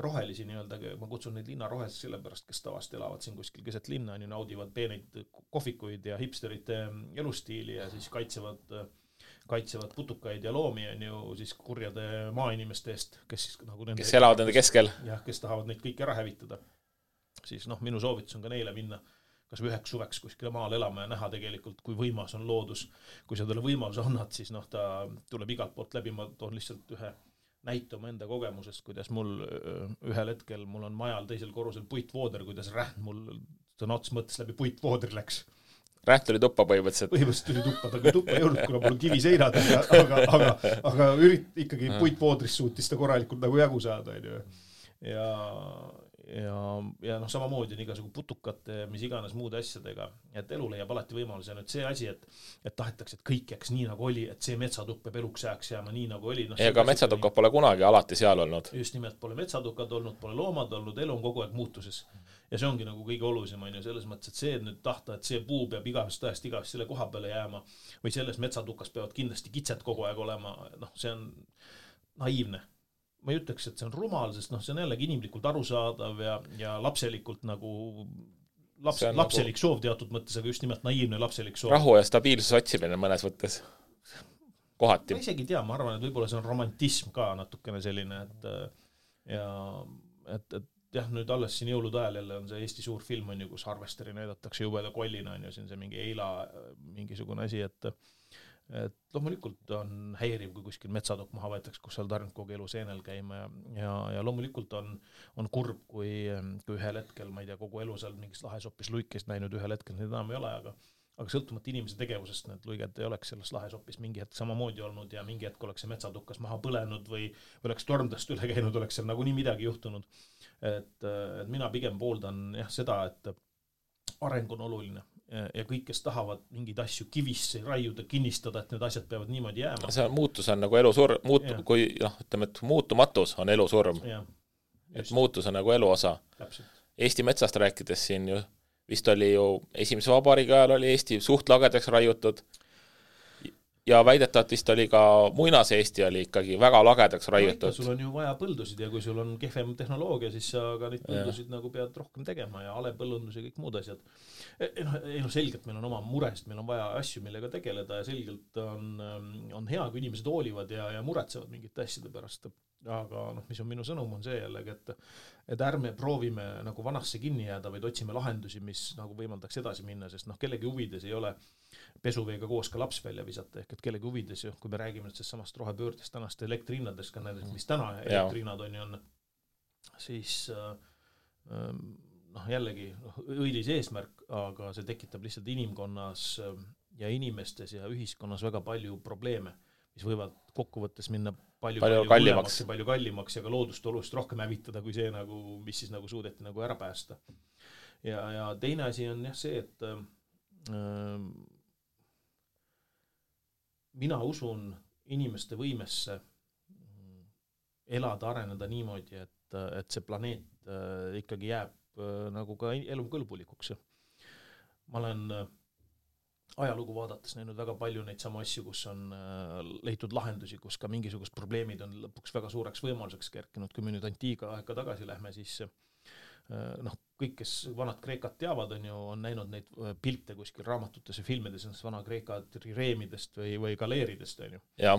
rohelisi nii-öelda, ma kutsun neid linna roheliseks sellepärast, kes tavast elavad siin kuskil keset linna, naudivad peeneid kohvikuid ja hipsterite elustiili ja siis kaitsevad putukaid ja loomi on ju siis kurjade maainimeste eest, kes siis nagu kes elavad nende keskel. Jah, kes tahavad neid kõik ära hävitada. Siis minu soovitus on ka neile minna kas või üheks suveks kuskile maal elama ja näha tegelikult, kui võimas on loodus. Kui sa talle võimaluse annad, siis ta tuleb igalt poolt läbi. Ma toon lihtsalt ühe näite oma enda kogemusest, kuidas mul ühel hetkel, mul on majal teisel korrusel puitvooder, kuidas rähn mul sõna ots mõttes läbi puitvoodri läks. Rähn tuli tuppa põhimõtteliselt. Põhimõtteliselt tuli tuppa, aga tuppa ei olnud, kuna mul on kiviseinad, aga ikkagi puitvoodrist suutis ta korralikult nagu jagu saada. Ja samamoodi on igasugu putukate, mis iganes muude asjadega, et elu leiab alati võimaluse. Nüüd see asi, et tahetakse, et kõik jääks nii nagu oli, et see metsatupp peab eluks jääks jääma nii nagu oli. Ega metsatukad pole kunagi alati seal olnud. Just nimelt pole metsatukad olnud, pole loomad olnud, elu on kogu aeg muutuses. Ja see ongi nagu kõige olulisem on ju selles mõttes, et see nüüd tahta, et see puu peab igavest selle koha peale jääma või selles metsatukas peavad kindlasti kitsed kogu aeg olema, see on naiivne. Ma ei ütleks, et see on rumal, sest see on jällegi inimlikult arusaadav ja lapselikult nagu lapselik soov teatud mõttes, aga just nimelt naiivne lapselik soov. Rahu ja stabiilsus otsimine mõnes võttes. Kohati. Ma isegi tea, ma arvan, et võib-olla see on romantism ka natukene selline, et jah, nüüd alles siin jõulude ajal jälle on see Eesti suur film on ju, kus Harvesteri näidatakse jubeda kollina on ju, siin see mingi eila mingisugune asi, et loomulikult on häiriv, kui kuskil metsadok maha võetakse, kus seal tarnud kogu elu seenel käima ja loomulikult on kurb, kui ühel hetkel, ma ei tea, kogu elu seal mingis lahesopis luikest näinud, ühel hetkel need enam ei ole, aga sõltumata inimese tegevusest need luiged ei oleks selles lahesopis mingi hetk samamoodi olnud ja mingi hetk oleks see metsatukas maha põlenud või oleks tormdest üle käinud, oleks seal nagu nii midagi juhtunud. Et mina pigem pooldan seda, et areng on oluline ja kõik, kes tahavad mingeid asju kivisse raiuda, kinnistada, et need asjad peavad niimoodi jääma. See muutus on nagu elusurm, kui ütleme, et muutumatus on elusurm. Et muutus on nagu elu osa. Eesti metsast rääkides siin ju vist oli ju esimese vabariigi ajal oli Eesti suht lagedaks raiutud ja väidetavalt vist oli ka muinas Eesti oli ikkagi väga lagedaks raiutud. Sul on ju vaja põldusid ja kui sul on kehvem tehnoloogia, siis sa ka neid põldusid nagu pead rohkem tegema ja alepõllundus ja kõik muud asjad. Selgelt meil on oma murest, meil on vaja asju, millega tegeleda ja selgelt on hea, kui inimesed hoolivad ja muretsevad mingite asjade pärast. Aga mis on minu sõnum on see jällegi, et ärme proovime nagu vanasse kinni jääda, vaid otsime lahendusi, mis nagu võimaldaks edasi minna, sest kellegi huvides ei ole pesuveega koos ka laps välja visata, ehk et kellegi huvides, kui me räägime nüüd samast rohepöördest tänast elektrihinnadest, ka näiteks, mis täna elektrihinnad on, siis jällegi õilis eesmärk, aga see tekitab lihtsalt inimkonnas ja inimestes ja ühiskonnas väga palju probleeme, mis võivad kokkuvõttes minna palju kallimaks ja ka loodust oluliselt rohkem hävitada kui see, mis siis suudeti ära päästa. Ja teine asi on see, et mina usun inimeste võimesse elada, areneda niimoodi, et see planeet ikkagi jääb nagu ka elukõlbulikuks. Ma olen ajalugu vaadates näinud väga palju neid samu asju, kus on leitud lahendusi, kus ka mingisugust probleemid on lõpuks väga suureks võimaluseks kerkinud. Kui me nüüd antiiga aega tagasi lähme, siis kõik, kes vanad Kreekat teavad, on näinud neid pilte kuskil raamatutes ja filmides, vana Kreeka trireemidest või galeeridest. Ja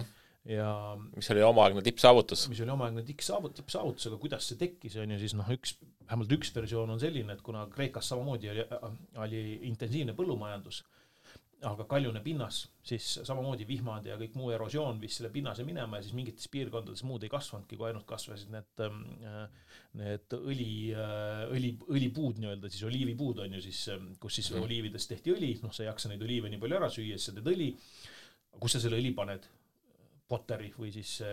mis oli omaaegne tippsaavutus. Mis oli omaaegne tippsaavutus, aga kuidas see tekkis, siis vähemalt üks versioon on selline, et kuna Kreekas samamoodi oli intensiivne põllumajandus, aga kaljune pinnas, siis samamoodi vihmad ja kõik muu erosioon viis selle pinnase minema ja siis mingites piirkondades muud ei kasvanudki, kui ainult kasvasid need õlipuud, siis oliivipuud on ju siis, kus siis oliividest tehti õli, sa ei jaksa neid oliive nii palju ära süüa, siis sa teed õli, kus sa selle õli paned? Poteri või siis,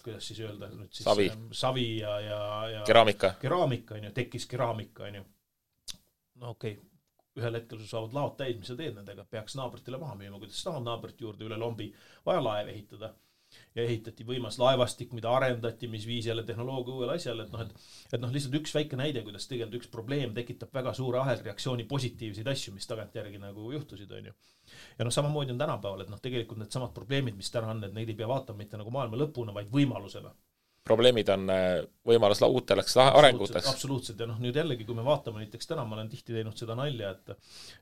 kuidas siis öelda? Savi ja keraamika on ju, tekkis keraamika on ju. Okei. ühel hetkel sul saavad laod täis, mis sa teed nendega, peaks naabritele maha müüma, kuidas saavad naabrit juurde üle lombi, vaja laev ehitada. Ja ehitati võimas laevastik, mida arendati, mis viis jälle tehnoloogia uuele asjale, et lihtsalt üks väike näide, kuidas tegelikult üks probleem tekitab väga suure ahelreaktsiooni positiivseid asju, mis tagantjärgi nagu juhtusid, on ju. Ja samamoodi on tänapäeval, et tegelikult need samad probleemid, mis täna on, et neid ei pea vaatama mitte nagu maailma lõpuna, vaid võimalusena. Probleemid on võimalus uuteks arenguteks. Absoluutselt. Ja nüüd jällegi, kui me vaatame näiteks täna, ma olen tihti teinud seda nalja,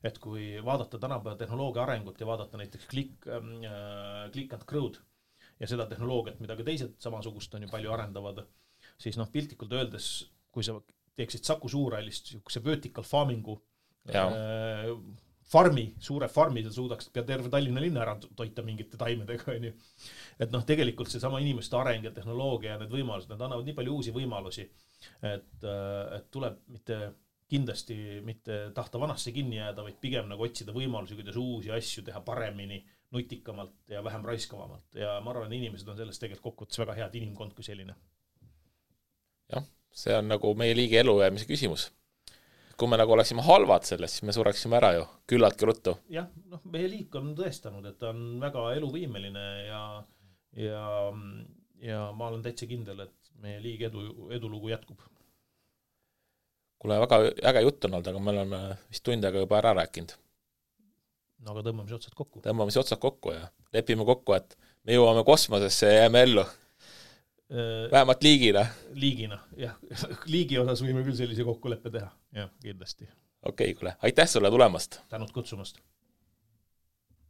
et kui vaadata tänapäeva tehnoloogia arengut ja vaadata näiteks click and crowd ja seda tehnoloogiat, mida ka teised samasugust on ju palju arendavad, siis piltlikult öeldes, kui sa teeksid Saku Suurhallist see vertical farmingu suure farmi, sa suudaks pea terve Tallinna linna ära toita mingite taimedega, on ju. Et tegelikult see sama inimeste areng ja tehnoloogia ja need võimalused, need annavad nii palju uusi võimalusi, et tuleb kindlasti mitte tahta vanasse kinni jääda, vaid pigem nagu otsida võimalusi, kuidas uusi asju teha paremini, nutikamalt ja vähem raiskavamalt. Ja ma arvan, inimesed on sellest tegelikult kokkuvõttes väga head inimkond kui selline. Jah, see on nagu meie liigi elujäämise küsimus. Kui me nagu oleksime halvad sellest, siis me sureksime ära ju, küllaltki ruttu. Jah, meie liik on tõestanud, et ta on väga eluvõimeline ja ma olen täitsa kindel, et meie liigi edulugu jätkub. Kuule, väga äge jutt on olnud, aga me oleme vist tundega juba ära rääkinud. No aga tõmbame otsad kokku. Tõmbame otsad kokku ja lepime kokku, et me jõuame kosmosesse ja jääme ellu. Vähemalt liigina. Liigina, jah. Liigi osas võime küll sellise kokkuleppe teha. Jah, kindlasti. Okei, kuule. Aitäh sulle tulemast. Tänud kutsumast.